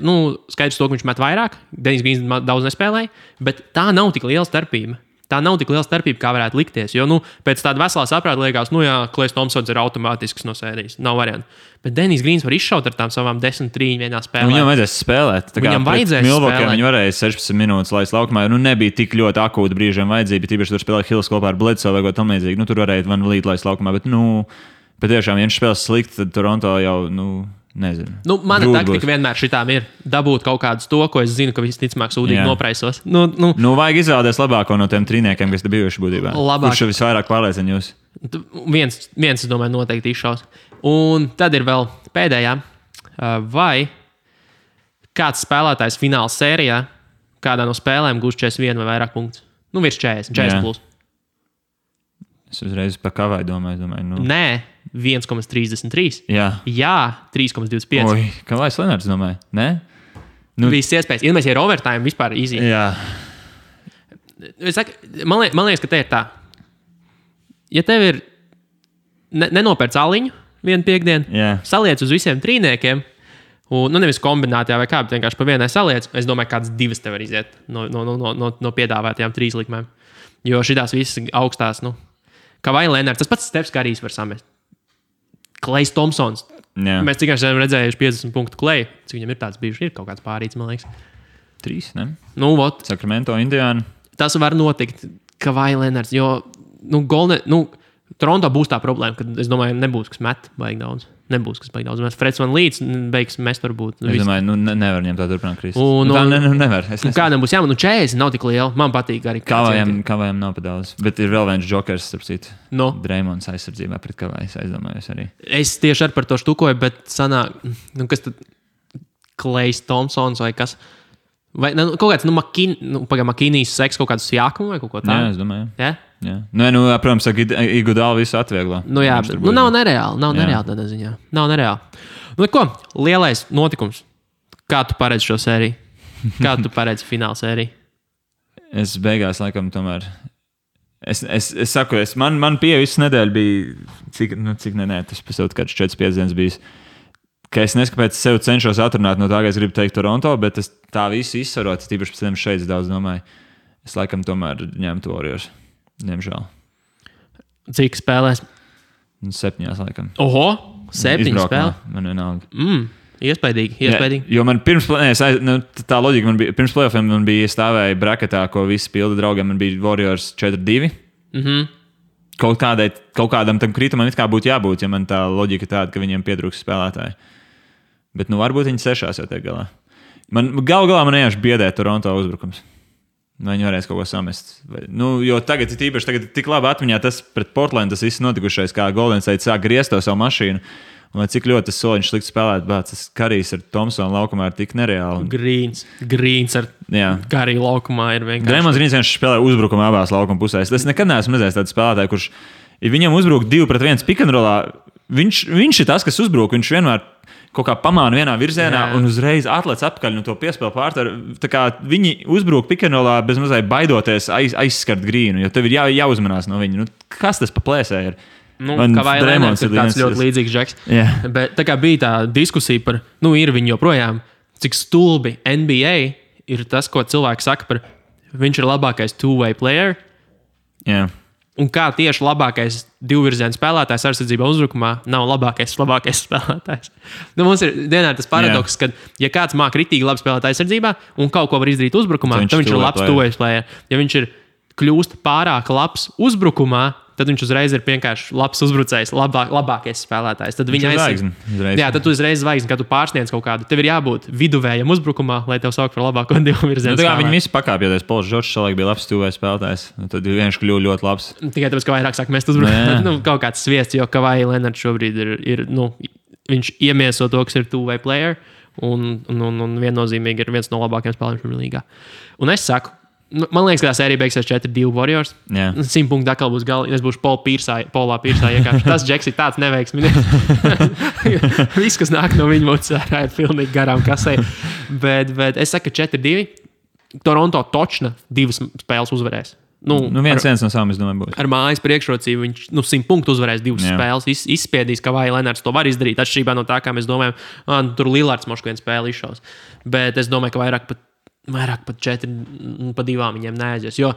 skaidrs to, ka viņš met vairāk. Denijs Grīns daudz nespēlēja, bet tā nav tik liela starpība. Tā nav tik liela starpība, kā varētu likties. Jo, pēc tāda veselā saprāta liekas, Klejs Thompsons ir automātisks no sērijas. Nav variantu. Bet Denijs Grīns var izšaut ar tām savām 10-3 vienā spēlē. Viņam vajadzēs spēlēt. Viņam vajadzēs spēlēt. Viņi varēja 16 minūtes laist laukumā. Nebija tik ļoti akūti brīžiem vajadzība. Tīpaši tur spēlēja Hills kopā ar Bledsoe vai ko tam līdzīgi. Tur varēja Van Vliet laist laukumā. Bet, tiešām, ja viņš spēlēs slikti, tad Toronto jau, nezinu. Mana taktika vienmēr šitām ir dabūt kaut kādus to, ko es zinu, ka visticamāk sūdīgi nopraisos. Vajag izvēlēties labāko no tiem trīniekiem, kas te bijuši būtībā. Kurš visvairāk pārliecina jūs? Viens, es domāju, noteikti izšaus. Un tad ir vēl pēdējā. Vai kāds spēlētājs fināla sērijā kādā no spēlēm gūs 41 vai vairāk punktus? Virs 40 plus. Es uzreiz par Kavai domāju. Nē, 1,33. Jā, 3,25. Oi, Kavais Lenards domāju. Nē? Viss iespējas. Ja mēs ir overtime, vispār easy. Jā. Man liekas, ka te ir tā. Ja tev ir nenopērc aliņu vienu piekdienu, saliec uz visiem trīniekiem, un nevis kombinācijā vai kā, bet vienkārši pa vienai saliec, es domāju, kādas 2 tev var iziet no piedāvātajām 3 likmēm. Jo šitās visas augstās, Kavai Lenards, tas pats Stefs Karijs var samest. Klejs Thompsons. Jā. Mēs tikai esam redzējuši 50 punktu Kleju. Cik viņam ir tāds bijuši? Ir kaut kāds pārīts, man liekas. 3, ne? Sacramento, Indiana. Tas var notikt Kavai Lenards, jo, Toronto būs tā problēma, ka, es domāju, nebūs, kas met baigi daudz. Mēs Freds Van Vliets beigs mest varbūt. Es domāju, nevar viņam tā turpināt krist. Nevar. Kādam būs jāman, 40 nav tik liela. Man patīk arī. Kavajam nav pa daudz. Bet ir vēl viens jokers, starp citu. Dreymonds aizsardzībā pret Kavaju, aizdomājos arī. Es tieši ar par to štukoju, bet sanāk, kas tad Klejs Thompsons vai kas? Vai kaut kāds, Makinijas seks kaut kāds jākumu vai kaut ko tādu? Jā, es domāju. Jā? Jā. Protams, ka Igudāli visu atvieglā. Nav nereāli tādā ziņā. Nav nereāli. Ko? Lielais notikums. Kā tu paredzi šo sēriju? Kā tu paredzi fināla sēriju? Es beigās, laikam, tomēr... Es saku, man pieeja visu nedēļu bija... Cik tas pēc kāds 4-5 dienas bijis. Ka es neskapēc sev cenšos atrunāt no tā, ka es gribu teikt Toronto, bet es tā visu izsvarot, tīpaši pēc tam šeit daudz domāju. Es laikam tomēr ņemtu Warriors. Diemžēl. Cik spēlēs? 7, laikam. Oho, 7 spēlē. Man vienalga. Iespaidīgi. Jo man tā loģika man bija, pirms playoffiem man bija stāvēja braketā, ko visi pilda draugiem, man bija Warriors 4-2. Kaut kādam tam kritumam it kā būtu jābūt, ja man tā loģika tāda, ka viņiem pietrūks spēlētāji. Bet varbūt viņi 6 jau tiek galā. Galā man vienkārši biedē Toronto uzbrukums. Vai viņi varēs kaut ko samest. Jo tagad ir tik labi atmiņā tas pret Portlandu, tas viss notikušais, kā Golden State sāk griezt to savu mašīnu. Un cik ļoti tas soliņš slikti spēlēt, bet tas Karijs ar Thompsonu laukumā ir tik nereāli. Grīns ar Kariju laukumā ir vienkārši. Dreymonds Grīns vienkārši spēlē uzbrukumu abās laukuma pusēs. Es nekad neesmu redzējis tādu spēlētāju, kurš ja viņam uzbruk 2-1 pick-and-rollā, viņš ir tas, kas uzbruk. Viņš vienmēr kaut kā pamāna vienā virzienā un uzreiz atlec atpakaļ no to piespēlu pārtaru. Tā kā viņi uzbruk pick-and-rollā bez mazliet baidoties aizskart grīnu, jo tev ir jāuzmanās no viņa. Kas tas pa plēsē ir? Kawhi Leonards ir tāds ļoti līdzīgs džeks. Bet tā kā bija tā diskusija par, ir viņi joprojām, cik stulbi NBA ir tas, ko cilvēki saka par, viņš ir labākais two-way player. Un kā tieši labākais divvirziena spēlētājs aizsardzībā uzbrukumā nav labākais spēlētājs. Mums ir dienā tas paradoks, ka, ja kāds māk ritīgi labi spēlēt aizsardzībā un kaut ko var izdarīt uzbrukumā, tad viņš ir labs two-way player. Ja viņš ir kļūst pārāk labs uzbrukumā, tad viņš uzreiz ir vienkārši labs uzbrucējs, labākais spēlētājs. Tad viņa tad tu uzreiz zvaigzni, kad tu pārsniedz kaut kādu. Tev ir jābūt viduvējam uzbrukumā, lai tev saukt par labāko divvirzienu spēlētāju. Viņi visi pakāpjoties. Pols Džordžs savulaik bija labs two-way spēlētājs. Tad viņš kļuva ļoti labs. Tikai tāpēc, ka vairāk sāk mest uzbrukumā. Kaut kāds sviests, jo Kawhi Leonards šobrīd ir viņš iemieso to, kas ir two-way player. Un viennozīmīgi ir viens no labākajiem spēlētājiem līgā. Un es saku, man liekas, ka tā sērija beigsies 4-2 Warriors. 100 punktu atkal būs galā. Es būšu Polā Pīrsā iekārši. Tas džeks ir tāds neveiksmīgs. Viss, kas nāk no viņa mutes, ir pilnīgi garām kasē. Bet es saku, ka 4-2. Toronto točna 2 spēles uzvarēs. 1-1 no savām, es domāju, būs. Ar mājas priekšrocību viņš 100 punktu uzvarēs 2 spēles. Izspiedīs, ka Kawhi Leonards to var izdarīt. Atšķirībā no tā, kā mēs domājam, tur Lillards mošku vienu spēli izšaus. Bet es domāju, ka vairāk pat 4-2 viņiem neaizies. Jo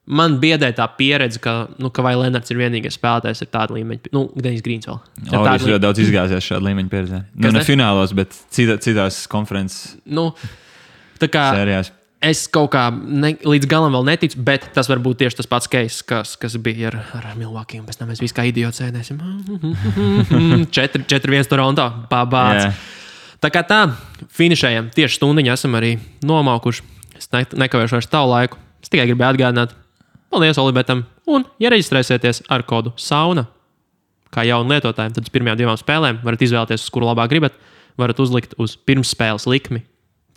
man biedē tā pieredze, ka Kawhi Leonards ir vienīgais spēlētājs ar tādu līmeņu. Denis Grīns vēl. Viņš ļoti daudz izgāzies šādu līmeņu pieredzē. Ne finālos, bet citās konferences sērijās. Es kaut kā līdz galam vēl neticu, bet tas var būt tieši tas pats case, kas bija ar Milwaukee. Un pēc tam mēs visi kā idioti sēdēsim. 4-1 Toronto. Pabāc. Tā kā tā, finišējam. Tieši stundiņā esam arī nomaukuši. Es nekavēšu vairs tavu laiku. Es tikai gribēju atgādināt. Paldies Olibetam. Un, ja reģistrēsieties ar kodu SAUNA, kā jaunu lietotājiem, tad uz pirmajām 2 spēlēm varat izvēlēties, uz kuru labāk gribat. Varat uzlikt uz pirmsspēles likmi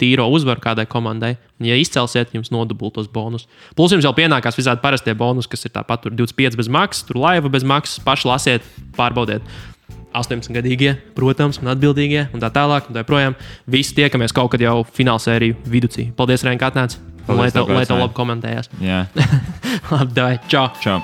tīro uzvaru kādai komandai. Un, ja izcelsiet, jums nodubultos bonus. Plus jums jau pienākās visādi parastie bonus, kas ir tāpat tur 25 bez maksas, tur laiva bez maksas. Paši lasiet, pārbaudiet. 18-gadīgie, protams, un atbildīgie, un tā tālāk, un tā projām. Visi tiekamies kaut kad jau finālsēriju viducī. Paldies, Rein, ka atnāc. Lai tev labi komentējās. Jā. Labi, davai. Čau. Čau.